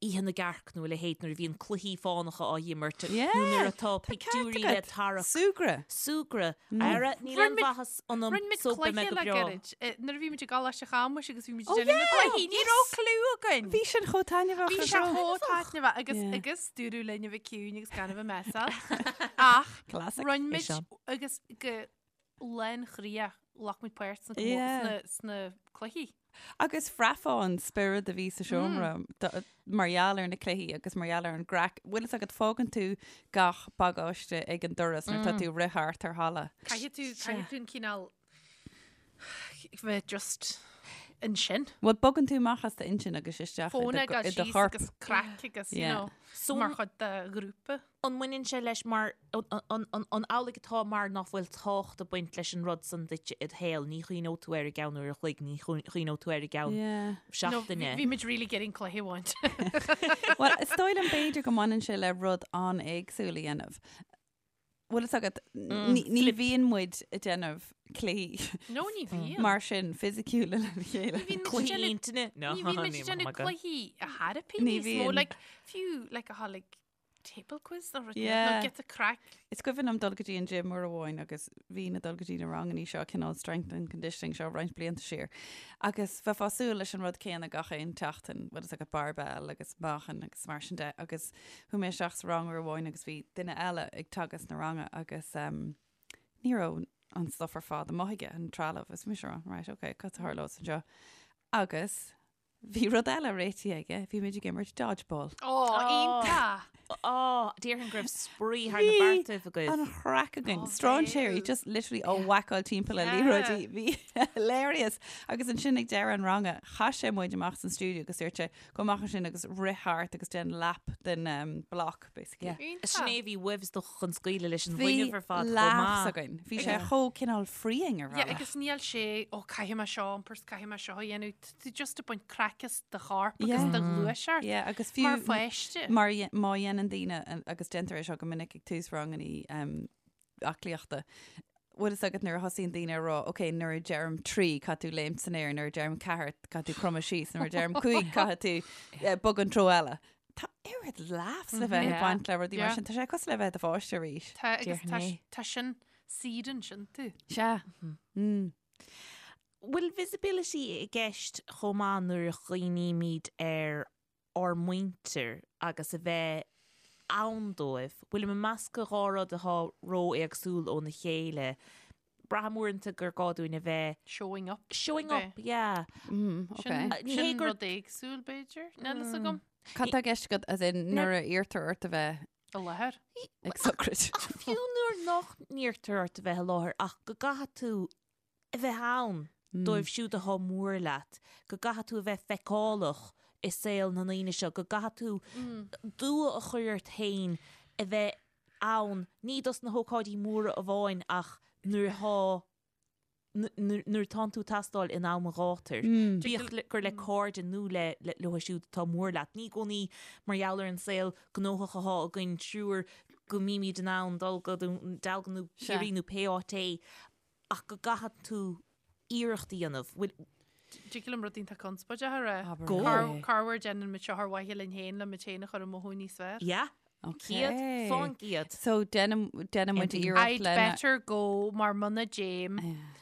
Oíche na gCearc nó a leithéid nuair a bhíonn cluichí fánacha á dh'imirt nó nuair atá pictiúirí le tarrac. Súgradh. Súgradh. Ara, níl aon mhaitheas ionam Rinne muid so beidh mé cluiche go le breá. gairid. Nuair a bhí muid i gColáiste Chamuis agus bhí muid Oh ag déanamh na yeah! gcluichí, ní raibh cliú againn. Bhí sin chomh taitneamhach. Bhí ar sé dóigh. chomh taitneamhach agus Yeah. agus dúradh linn a bheith ciúin agus gan a bheith messy. Ach Classic. rinne É muid seo. agus go lánchroíoch ghlac muid páirt sna Yeah. sna sna cluichí. Agus bhraithfeá an spiorad a bhí sa seomra mar gheall ar na cluichí agus mar gheall ar an gcraic. Bhfuil fhios agat, fágann tú gach bagáiste ag an doras nuair atá tú ag rith thart ar halla. Caithfidh tú, caithfidh tú an cineál bheith just ansin. Bhuel, bogann tú amach as d'intinn agus isteach i Fón do ag dul i do síos chorp. agus craic agus, you Yeah. know, So mar chuid de ghrúpa. An mbaineann sé leis mar, an amhlaidh atá mar nach bhfuil tábhacht ag baint leis an rud san duit id shaol, ní chuimhneoidh tú air i gceann uair a chloig, ní chuimhneoidh tú air i gceann seachtaine. Bhí muid really getting cluiche a bhaint. Bhuel, is dóigh liom b'fhéidir go mbaineann sé le rud an-éagsúil a dhéanamh. Bhfuil fhios agat, ní bhíonn muid ag déanamh cluichí No, ní bhíonn. mar sin fisiciúla lena chéile. Cluichí intinne? Ní bhíonn muid ag déanamh cluichí a therapy Ní níos mó, bhíonn. like, fiú, like, a tháinig Table quiz nó rud Yeah. nó get a craic. Is cuimhin liom dul go dtí an gym uair amháin agus bhínn ag dul go dtí na rangannaí seo, cineál strength and conditioning seo roinnt blianta siar. Agus bheifeá ag súil leis an rud céanna gach aon tseachtain, bhfuil fhios agat barbell agus meáchan agus mar sin de. Agus chuaigh mé isteach sa rang uair amháin agus bhí duine eile ag teagasc na ranga agus um, ní raibh an stuff ar fad amuigh aige, an trealamh. Is mise rá, right, okay, cad a tharlós anseo? Agus Bhí rud eile réitithe aige, bhí muid ag imirt dodgeball. Ó, iontach! Ó, déarfainn go raibh spraoi thar na beartaibh agaibh. An chraic againn. Ó, Stráinséirí, bhéal. just literally á whackáil timpeall le Yeah. liathróidí. Bhí hilarious. Agus ansin ag deireadh an ranga, chaith sé muid amach san stiúideo agus dúirt sé, gabh amach ansin agus rith thart agus déan lap den um, block, basically. Yeah. Iontach. Sin é a bhí uaibh is dócha chun scaoileadh leis an Bhí bhfuinneamh ar fad chomh laughs maith. againn. Bhí sé chomh cineál freeing ar Yeah, bhealach. agus níl sé, ó, caithfidh mé seo a iompar 's caithfidh mé seo a dhéanamh. Tá tú just ag baint craic as do chorp agus Yeah. do ghluaiseacht. Yeah, agus fiú Mar pháiste. Mar a má dhéanann daoine, agus déantar é seo go minic ag tús rangannaí um, aclaíochta, bhfuil fhios agat nuair a thosaíonn daoine ag rá, ok, nuair a deirim trí, caithfidh tú léimt san aer, nuair a deirim ceathair, caithfidh tú cromadh síos, nuair a deirim cúig, caithfidh tú eh, bogadh an treo eile. Tá oiread laughs le bheith ag Yeah. baint le rudaí mar Yeah. sin. Tá sé cosúil le bheith i do pháiste arís. Tá agus tá Déarfainn é. tá sin saorann sin tú. Sea. Mm. Bhfuil visibility i gceist chomh maith nuair a chuimhnímid ar ár muintir agus a bheith ann dóibh? Bhfuilim ag meascadh dhá rud atá ró-éagsúil óna chéile? Braithim uaireanta gur gá dúinn a bheith Showing up. showing up, yeah. Mm, Sin, okay. Ní hé sin gur- rud éagsúil b'fhéidir. Níl fhios agam. Cad tá i gceist agat as in nuair a iarrtar ort a bheith I láthair. ag sochraid? Ach fiú nuair nach n-iarrtar ort a bheith i láthair ach go gcaithfidh tú a bheith ann dóibh siúd atá mór leat, go gcaithfidh tú a bheith feiceálach i saol na ndaoine seo, go gcaithfidh tú dua a chur ort féin a bheith ann, ní dos na hócáidí móra amháin ach nuair atá nuair atánn tú ag teastáil in am an ghátair, bíodh gur le cairde nó le leo siúd atá mór leat. Ní i gcónaí mar gheall ar an saol gnóthach atá againn triúr go mbímid in ann dul go Dún Dealgan nó Ciarraí nó pé áit é ach go gcaithfidh tú iarracht a dhéanamh. Bhfuil. Dtig liom rud iontach conspóideach a rá. Abair. Go. Corruair déanann muid seo ar mhaithe linn féin le muid féin a chur ag mothú níos fearr. Yeah. 100%. So déanann muid iarracht I'd lena. better go mar muna dtéim.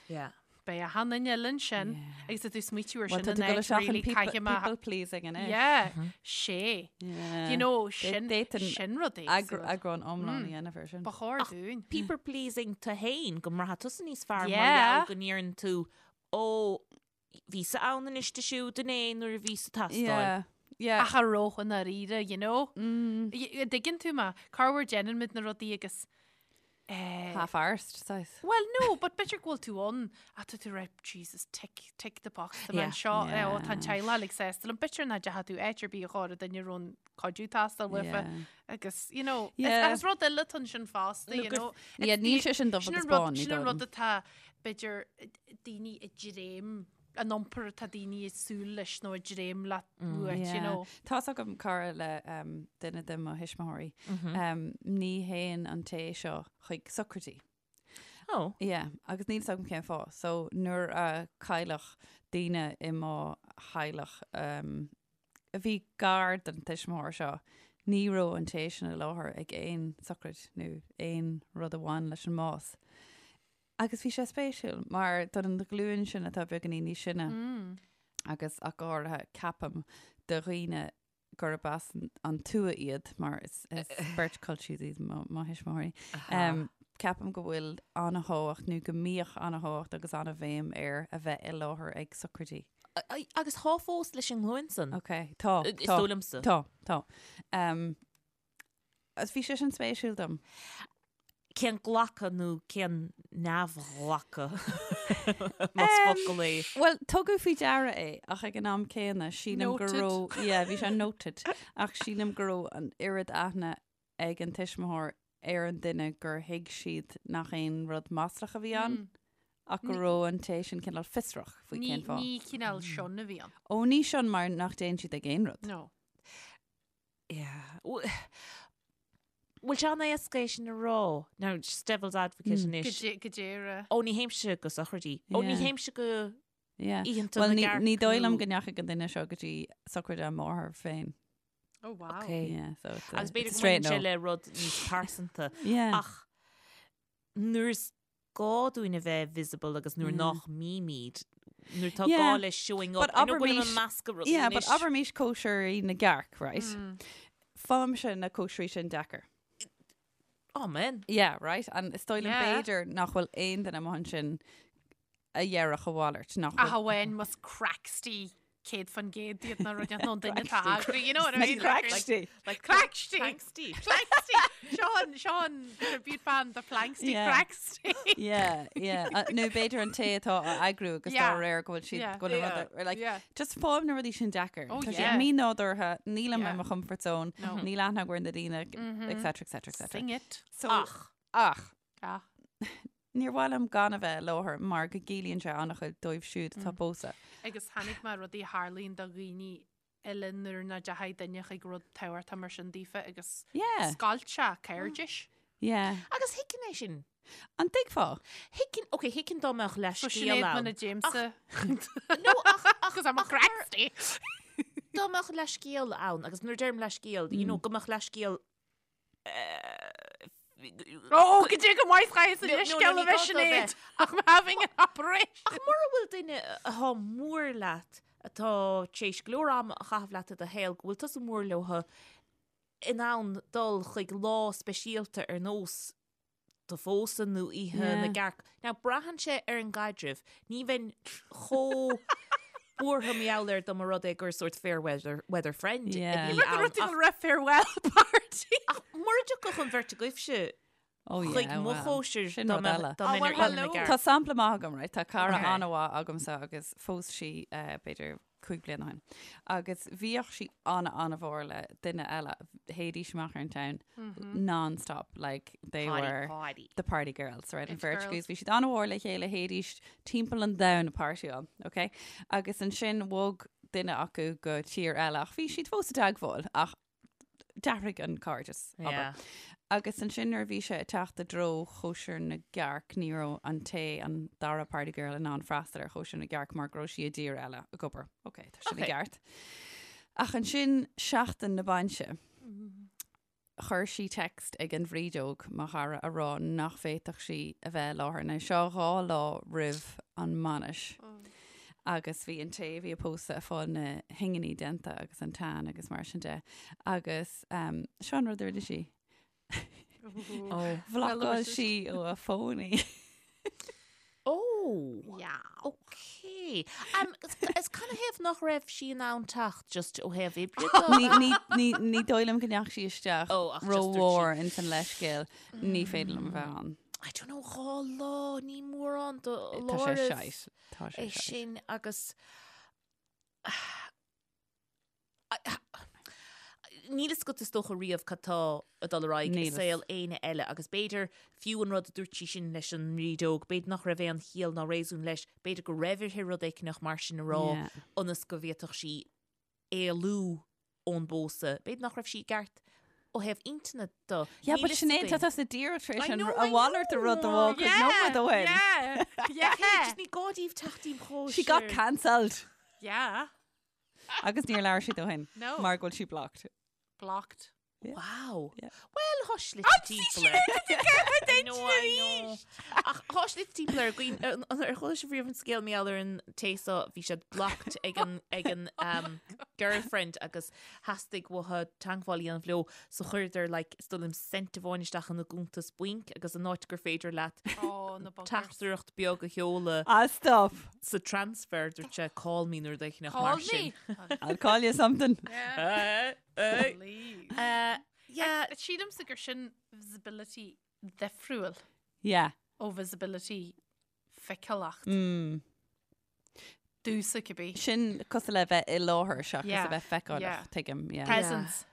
Yeah. Beidh achan duine eile ansin agus tá tú smaoitiú ar Well, sin tá an tú ag dul áit isteach in really people, caithfidh mé people pleasing anois. Yeah, sé. Yeah. You know, sin D'fhéadfainn sin rud éagsúil. Eagrán iomlán a dhéanamh ar sin. Ba chóir dúinn. People pleasing tú féin go mbraithfidh tusa níos fearr mar Yeah. gheall go ndeireann tú ó bhíos-sa ann anois di siúd inné nuair a bhíos-sa ag teastáil. Yeah. Yeah. Ach a rogha i ndáiríre, you know? Y- Dtuigeann tú mé, corruair déanann muid na rudaí agus eh, Half-arsed, saghas. Well, no, but b'fhéidir go bhfuil tú ann ach tá tú right, Jesus, tick, tick the box, tá mé Yeah. anseo, eh, ó, tá an Yeah. teaghlach uilig sásta liom. B'fhéidir nach dteachaigh tú áit ar bith a chóir duine a raibh an cuidiú ag teastáil uafa Yeah. agus, you know, Yeah. is, is rud eile atá ansin fosta, you gur- know. Yeah, It's níl the- sé sin dubh Sin agus an rud, bán, ní sin an dóigh rud liom. atá, b'fhéidir, daoine ag dréim. an iompar atá daoine ag súil leis nó ag dréim leat uait, you Yeah. know. Tá's agam cara le um, duine de mo thuismitheoirí. Um, ní théann an té seo chuig socraidí. Oh. Yeah, agus níl 's agam cén fáth. So nuair a cailleadh daoine i mo theaghlach um, a bhí gar don tuismitheoir seo, ní raibh an té sin i láthair ag aon socraid nó aon rud a bhain leis an mbás. Agus bhí sé spéisiúil mar don ghlúin sin atá beagáinín níos sine agus ach go háirithe ceapaim do dhaoine gurb as an tuath iad mar is beirt culchies iad mo thuismitheoirí. Ceapaim go bhfuil an-thábhacht nó go mbíodh an-thábhacht agus an-bhéim ar a bheith i láthair ag socraidí. Agus tá fós leis an nglúin san. Ok, tá. Is dóigh liomsa. Tá, tá. Agus bhí sé sin spéisiúil dom. Cén glacadh nó cén neamhghlacadh, más focal é? Bhuel, tugadh faoi deara é, ach ag an am céanna, sílim go raibh, yeah, bhí sé noted, ach sílim go raibh an oiread aithne ag an tuismitheoir ar an duine gur thuig siad nach aon rud maslach a bhí ann, ach go raibh an té sin cineál fiosrach faoi cén fáth. Ní cineál shun a bhí ann. Ó, ní shun mar nach dtéann siad ag aon rud. No. Yeah. Bhfuil sé an-éasca é sin a rá? Now, just devil's advocate anois. Go deireadh. Ó, ní théimse go sochraidí. Ó, ní théimse go Yeah. oícheanta Well, na ní, gcearc ní dóigh liom nó- go ndeachaigh an duine seo go dtí socraid a máthar féin. Oh, wow. Okay. Yeah, so it's a, Agus b'fhéidir it's a go straight mbaineann sé no. le rud níos pearsanta. Yeah. Ach nuair is gá dúinn a bheith visible agus nuair nach mbímid, nuair tá gá le showing up, But I know go bhfuilim abraimis- ag meascadh rudaí Yeah, but anois. abraimis cóisirí na gcearc, right? Faighimse na cóisirí sin deacair. Oh, man. Yeah, right? And is dóigh liom Yeah. b'fhéidir nach bhfuil aon duine amuigh ansin a dhéarfadh a mhalairt nach Ach bhfuil amháin más cracksty 100% iad na rudaí nó an duine atá á eagrú, you know what I Na mean? cracksty. Like Cracksty. Cranksty. Planksty. Sean, Sean, tribute band the Planksty Yeah. Cracksty. Yeah, yeah. Uh, Nó b'fhéidir an té atá á eagrú agus dá Yeah. réir go bhfuil siad Yeah. go bhfuil an Yeah. rud ar- like, Yeah. just faighim na rudaí sin deacair. Oh, Tá sé yeah. mínádúrtha, nílim Yeah. i mo comfort zone, No. níl aithne agam ar na daoine, etc, etc, etc. Sing it. So, Ach. ach, Ah. Níor mhaith liom gan a bheith i láthair mar go gciallaíonn sé an-chuid dóibh siúd atá ag pósadh. Agus chonaic mé rudaí a tharlaíonn do dhaoine eile nuair nach dteachaigh duine chuig rud tábhachtach mar sin daofa agus Yeah. scoilt sé cairdis. Yeah. Agus thuigfinn é sin. An dtuigfeá? Thuigfinn, ok, thuigfinn dá mbeadh So leithscéal Sinéad ann. muna dtéimse. No, ach, ach, Cos I'm a ach cracksty. dá mbeadh leithscéal ann, agus nuair a deirim leithscéal, you know, go mbeadh leithscéal Ó, go dtí go maith chaith No, no, leithscéal ní a bheith gá dó Sinéad. bheith. I'm having an operation. Ach mura bhfuil duine atá mór leat, atá tar éis go leor ama a chaitheamh leat i do shaol, go bhfuil tusa mór leo, in ann dul chuig lá speisialta ar nós do phósadh nó oíche na gcearc. Now, braitheann sé ar an gcaidreamh. Ní bheinn chomh buartha mar gheall air dá mba rud é gur sórt fair weather, weather friend a Yeah. bhí Rud ann. rud Ach, raibh farewell party. ach mura dtiocfadh an bheirt agaibhse Oh, yeah, chuig mo well, chóisir sin dá rud mbeadh eile. dá Oh, mbeinn well, ar Oíche na hello. gCearc. Tá sampla maith agam, right? Tá cara Okay. an-mhaith agamsa agus phós sí eh, b'fhéidir 5 bliana ó shin. Agus bhíodh sí an-an-mhór le duine eile. Théidís amach ar an town non-stop, like they Party, were party. the party girls, right? An It bheirt girls. agus bhí siad an-mhór le chéile théidís timpeall an domhain ag partyáil, ok? Agus ansin bhog duine acu go tír eile ach bhí siad fós i dteagmháil ach d'athraigh an cairdeas, abair. Yeah. Agus ansin nuair a bhí sé ag teacht i dtreo chóisir na gcearc, ní raibh an té, an dara party girl in ann freastal ar chóisir na gcearc mar go raibh sí i dtír eile ag obair. Ok, tá sin i Ok. gceart. Ach ansin seachtain na bainse, chuir sí text ag an bhrídeog, mo chara, a rá nach bhféadfadh sí a bheith i láthair. Now seo 2 lá roimh an mbainis. Agus bhí an té a bhí ag pósadh ag fáil na hinginí déanta agus an tan agus mar sin de. Agus um, seo an rud a rinne sí. Oh. Bhlocáil sí ó a fón í. Oh. Yeah. Ok. Um, is, is canathaobh nach raibh sí in ann teacht just ó thaobh oibre de? Ní, ní, ní, ní dóigh liom go ndeachaigh sí isteach Oh, ach just dúirt sí- rómhór ins an leithscéal. Ní féidir liom a bheith ann. I don't know, 2 lá, ní mórán do Tá sé láraibh shite. Tá sé é shite. sin agus. Níl fhios agat is dócha riamh cad tá ag dul ar aghaidh i saol éinne eile agus b'fhéidir fiú an rud a dúirt sí sin leis an mbrídeog, b'fhéidir nach raibh aon chiall ná réasún leis, b'fhéidir go raibh uirthi rud éicneach mar sin a rá ionas go bhféadfadh sí éalú ón bpósadh. B'fhéidir nach raibh sí i gceart ó thaobh intinne de. Yeah, but Sinéad, tá tusa díreach tar éis an a mhalairt de rud a rá cúpla nóiméad ó shin. Yeah, yeah. Just ní gá daoibh teacht im chóisir. She got cancelled. Yeah. Agus níor labhair siad ó shin. No. Mar go bhfuil sí blocked. Blocked. Yeah. Wow. Yeah. Well, thá slite timpeall air. I know, I know. Ach thá slite timpeall air. Guím, ar chuala sibh riamh an scéal mar gheall ar an té so, bhí siad blocked ag an, ag an um, girlfriend agus theastaigh uathu teagmháil a dhéanamh leo so chuireadar like, is dóigh liom cent amháin isteach ina gcuntas bainc agus an áit gur féidir leat Oh, na buggers. teachtaireacht beag a sheoladh Ah, stop. sa transfer dúirt sé call me nó rud éicneach Call mar sin. me. I'll call you something. Yeah. Eh, Please. eh, yeah, Sílimse gur sin visibility difriúil Yeah. ó visibility feiceálacht. Mm. Domsa cibé. Sin cosúil le bheith i láthair seachas Yeah. a bheith feiceálach, Yeah. tuigim. Yeah. Presence.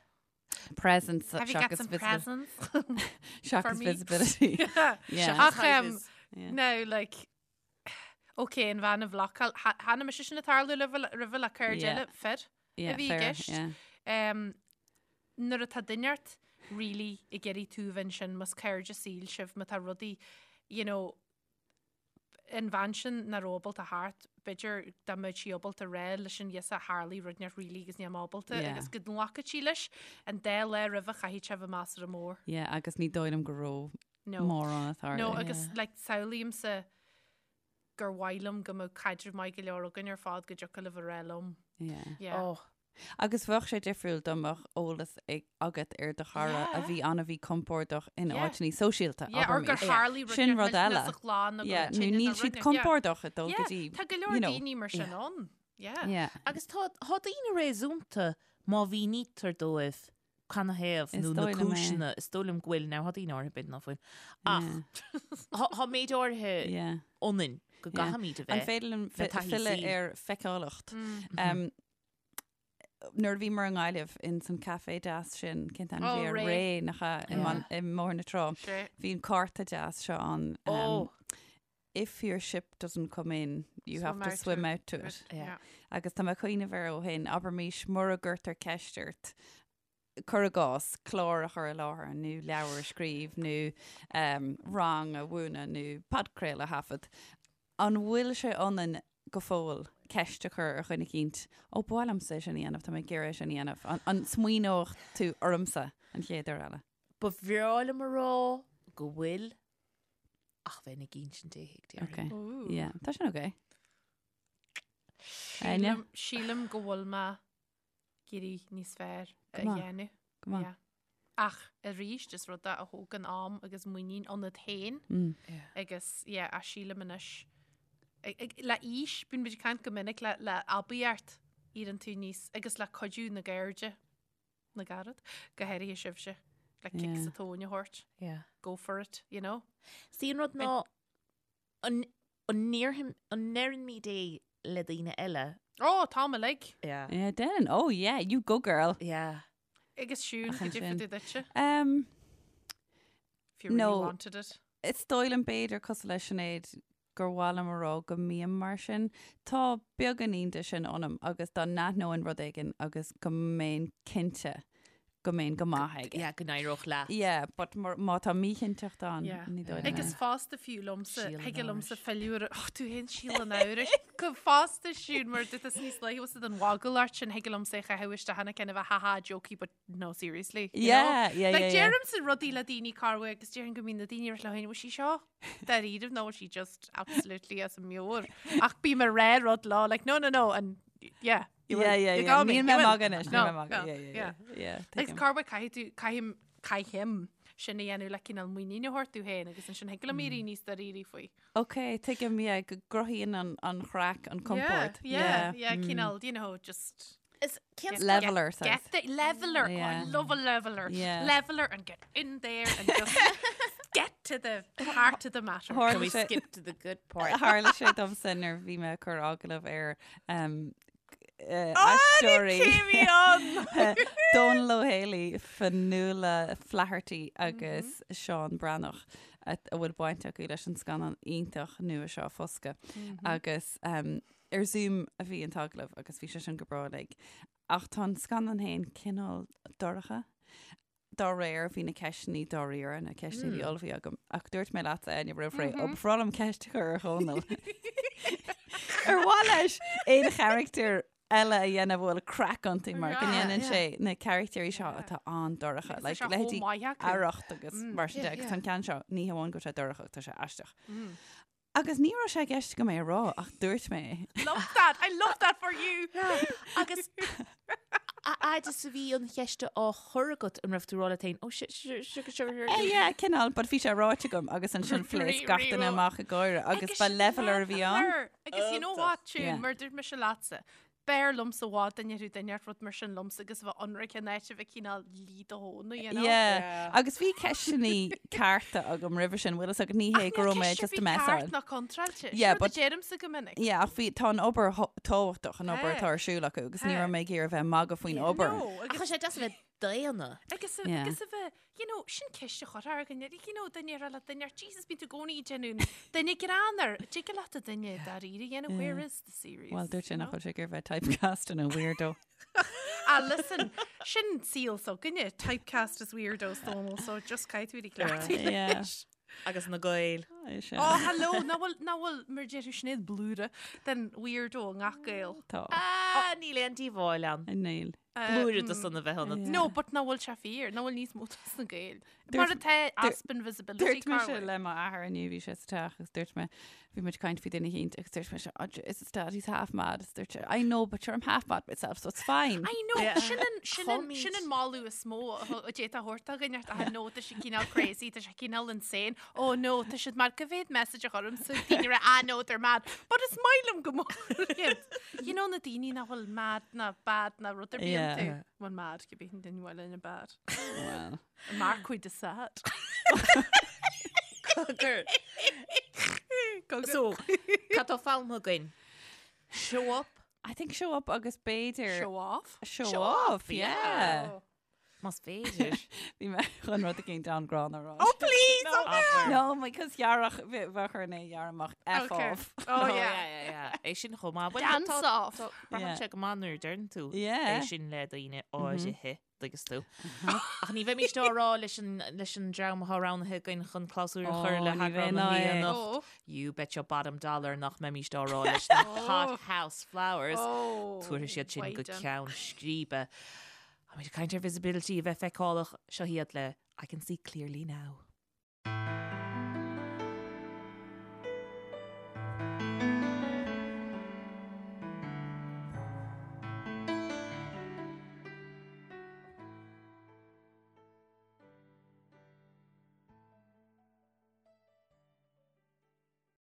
Presence Have you got seachas some visibil- presents? for seachas me? visibility. Yeah. Ach, um, Yeah. now, like, ok, an bhean a bhlocáil, chonaic mise sin ag tarlú roimhe le cairde Yeah. eile, fir Yeah, a bhí i fair, gceist. yeah. Um, nuair atá duine ort really ag iarraidh tú bheith ansin, más cairde saoil sibh, má tá rudaí, you know, an bhean sin nach raibh ábalta theacht, b'fhéidir dá mbeadh sí ábalta rá leis an ghirseach tharlaigh rud inteacht really agus níl mé ábalta Yeah. agus go nglacfadh sí leis an dá lá roimhe chaithfidh sé bheith measartha mór. Yeah, agus ní dóigh liom go raibh No. mórán ag tarlú. No, agus like, samhlaímse gur mhaith liom go mbeadh caidreamh maith go leor againn ar fad go dtiocfadh libh a rá liom. Yeah. Yeah. Oh, Agus bheadh sé difriúil dá mbeadh eolas agat ar do chara a bhí an-mhíchompordach in áiteanna sóisialta, Yeah, or gur abraimis. tharlaigh rud Sin rud eile. sa chlann nó go Yeah, raibh nó tine níl nó siad rud inteacht. compordach ag dul go Yeah, dtí, Tá go leor you know. daoine mar sin ann. Yeah. Yeah. Agus tá tá daoine réasúnta má mhínítear dóibh canathaobh Is nó na dóigh liom é. cúiseanna, is dóigh liom go bhfuil, now tá daoine áirithe b'fhéidir ná fuil. Ach Yeah. tá méid áirithe Yeah. ionainn go Yeah. gcaithfimid a An bheith. féidir liom le fi- taithí filleadh saoil. ar feiceálacht? Um, Nuair a bhíomar i nGaillimh in san café deas sin, cén t-ainm Oh, a bhí air? Ré. Ré, nach ea, i Yeah. mBaile- i mBóthar na Trá. Sé. Bhí an cárta deas seo ann. Um, Oh, If your ship doesn't come in, you Swim have to out swim to out to it. Yeah. Agus tá mé ag cuimhneamh air ó shin, abraimis mura gcuirtear ceist ort, cuir i gcás, clár a chur i láthair nó leabhar a scríobh nó um, rang a mhúineadh nó podchraoladh a thaifead. An bhfuil sé ionainn go fóill ceist a chur ar dhuine eicínt, Ó, ba mhaith liomsa é sin a dhéanamh, tá mé ag iarraidh é sin a dhéanamh. An, an smaoineodh tú ormsa an chéad uair eile? Ba bhreá liom a rá go bhfuil, ach bheinn ag insint Dé thuig, déarfainn. Ok. Ooh. Yeah, tá sin ok. Áine? Sílim, sílim go bhfuil mé ag iarraidh níos fearr a Go maith. dhéanamh. Go maith. Yeah. Ach arís is rud é a thógann am agus muinín ionat féin Mm. agus yeah, ach sílim anois. Ag- ag- Le aois, bíonn muid ag caint go minic le, le aibíocht éiríonn tú níos agus le cuidiú na gcairde na gcarad, go háirithe sibhse, le cic Yeah. sa tóin a thabhairt, Yeah. go for it, you know? Sí an rud ná an an ndéarfaim- an ndeirimid é le daoine eile. Ó, tá mé like. Yeah. Yeah, déanann. Oh yeah, you go girl. Yeah. Agus Siún, Ach, cad é ansin. fá dtaobh duitse? Um, If you really No. wanted it. Is dóigh liom b'fhéidir cosúil le Sinéad gur mhaith liom a rá go mbím mar sin. Tá beagáinín de sin ionam agus dá n-aithneoinn rud éigin agus go mbeinn cinnte go mbeinn go maith aige. Yeah, go n-éireodh leat. Yeah, but mar- má tá míchinnteacht ann, Yeah. ní dóigh liom Agus é. fosta fiú liomsa, Síol an thig liomsa amhrais. filleadh ar, oh, tú féin síol an amhrais. Go fosta Siún, mar dúirt tusa níos luaithe was an mhagaill ort sin, thig liomsa é a chaitheamh isteach ina ceann a bheith ha ha jokey, but no seriously. you know? Yeah, yeah, Like yeah, yeah. deirimse rudaí le daoine corruair agus déarfainn go mbíonn na daoine ar leo féin, bhfuil sí seo dáiríre nó bhfuil sí just absolutely as a meabhair. Ach bím ag rá rud leo, like no no no and yeah. You Yeah, will. yeah, You yeah. got me. Níl You mé will. magadh anois, níl No, mé magadh. no, Yeah, yeah, yeah. Yeah, Agus tuigim. corruair caithfidh tú, caithim, caithim sin a dhéanamh le cineál muinín a thabhairt domh féin agus ansin thig liom éirí níos dáiríre faoi. Ok, tuigim, yeah, go gcruthaíonn an, an chraic, an compord. Yeah, yeah, yeah, cineál, you know, just Is cén get- Leveler, get, get the leveler. Oh, I Yeah. love a leveler. Yeah. Leveler and get in there and just get to the heart of the matter. Tharla Can we sé- skip to the good part? Tharla sé domsa nuair a bhí mé ag cur agallamh ar um, aisteoirí Dónal Ó Héalaí, Fionnuala Flaherty agus Seán Breathnach a bhfuil baint acu leis an scannán iontach nua seo Foscadh. Agus ar Zoom a bhí an t-agallamh agus bhí sé sin go breá uilig. Ach tá an scannán féin cineál dorcha. Dá réir, bhí na ceisteanna dáiríre, na ceisteanna a bhí ullmhaithe agam. Ach dúirt mé leatsa, Áine, roimh ré, ó, ba bhreá liom ceist a chur ar Dhónal. Ar mhaith leis aon charachtar eile a dhéanamh a bhfuil craic iontu mar go ndéanann sé na carachtair seo atá an-dorcha, like leithéidí Arracht agus mar sin de, agus tá an ceann seo, ní hamháin go bhfuil sé dorcha ach tá sé aisteach. Agus ní raibh sé i gceist agam é a rá ach dúirt mé é. Love that! I love that for you! Agus a fhad is a bhí an cheist á chur agat an raibh tú ag rá leat féin, oh shit, shit, shit, shit, shit. Eh, yeah, cineál, but bhí sé ráite agam agus ansin phléasc gach duine amach ag gáire agus ba leveler a bhí ann. Agus you know what, Siún, mar dúirt mise leatsa, B'fhearr liomsa i bhfad dá ndéarfadh duine rud mar sin liomsa agus a bheith ionraic in áit a bheith cineál lí do thóna, you know? Yeah. Agus bhí ceisteanna cearta agam roimhe sin, bhfuil fhios agat, ní hé go raibh mé just ag messáil. Ceart ná contráilte. Yeah, but deirimse go minic. Yeah, ach bhí, tá an obair tábhachtach, an obair atá ar siúl acu, agus ní raibh mé ag iarraidh a bheith ag magadh faoin obair. No, agus. Ach tá sé deas a bheith daonna. Agus agus a bheith, you know, sin ceist a chur ar dhuine, you know, duine a rá le duine, Jesus, bíonn tú i gcónaí ag déanamh duine greannmhar, tig leat a duine dáiríre a dhéanamh, where is the serious? Well, dúirt sé nach bhfuil sé ag iarraidh bheith typecast in a weirdo. Ah, listen, sin saol s'againne, typecast as weirdos, Dónal, so just caithfidh tú cleachtadh leis. Agus na Gaeil. Oh, hello, nach bhfuil, nach bhfuil, mar a déarfadh Sinéad, blúire den weirdo i ngach Gael. Tá. Ah, níl aon díobháil ann. Níl. Blúire de san a bheith ionat. No, but nach bhfuil sé fíor, nach bhfuil níos mó dos na Gaeil. Mar atá easpa visibility. Dúirt mise le m'athair inniu, bhí sé sa teach agus dúirt mé, bhí muid ag caint faoi duine eicínt agus dúirt mise, oh, is dad, he's half mad. Agus dúirt sé, I know, but sure I'm half mad myself, so it's fine. I know, sin an, sin an, sin an moladh is mó a d'fhéadfá a thabhairt do dhuine, I know, tá sé cineál crazy, tá sé cineál insane. Oh no, tá siad mad, cá mhéad message a chuirimse daoine ag rá, ah no, they're mad. But is maith liom go mór iad. You know na daoine nach bhfuil mad ná bad ná rud ar bith iontu. Yeah. Well mad, cibé an duine bhfuil ina bad. Well. Marquis de Sade. Cogar. So, cad tá foghlamtha againn? Show up. I think show up agus b'fhéidir... Show off? Show off, yeah. Oh. Más féidir. Bhí mé chun rud eicínt an-ghránna a rá. Oh please! No, no, because ghearrfadh, bheadh orainn é a ghearradh amach F Okay. off. Oh yeah. yeah, yeah, yeah. É sin chomh maith. Bhuel, Dance tá- off. tá- Braitheann sé go maith nuair a deireann tú Yeah. é sin le daoine áirithe, tuigeann tú. Ach ní bheimid á rá leis an, leis an dream atá roghnaithe againn chun clabhsúr a chur Oh, le ní heagrán bheinn na á é. mí anocht. Oh. You bet your bottom dollar nach mbeimid á rá leis na Hot House Flowers. Oh. Tabharfaidh siad sin go Wait, um. ceann scríbe. Táimid ag caint ar visibility a bheith feiceálach, seo iad le I Can See Clearly Now.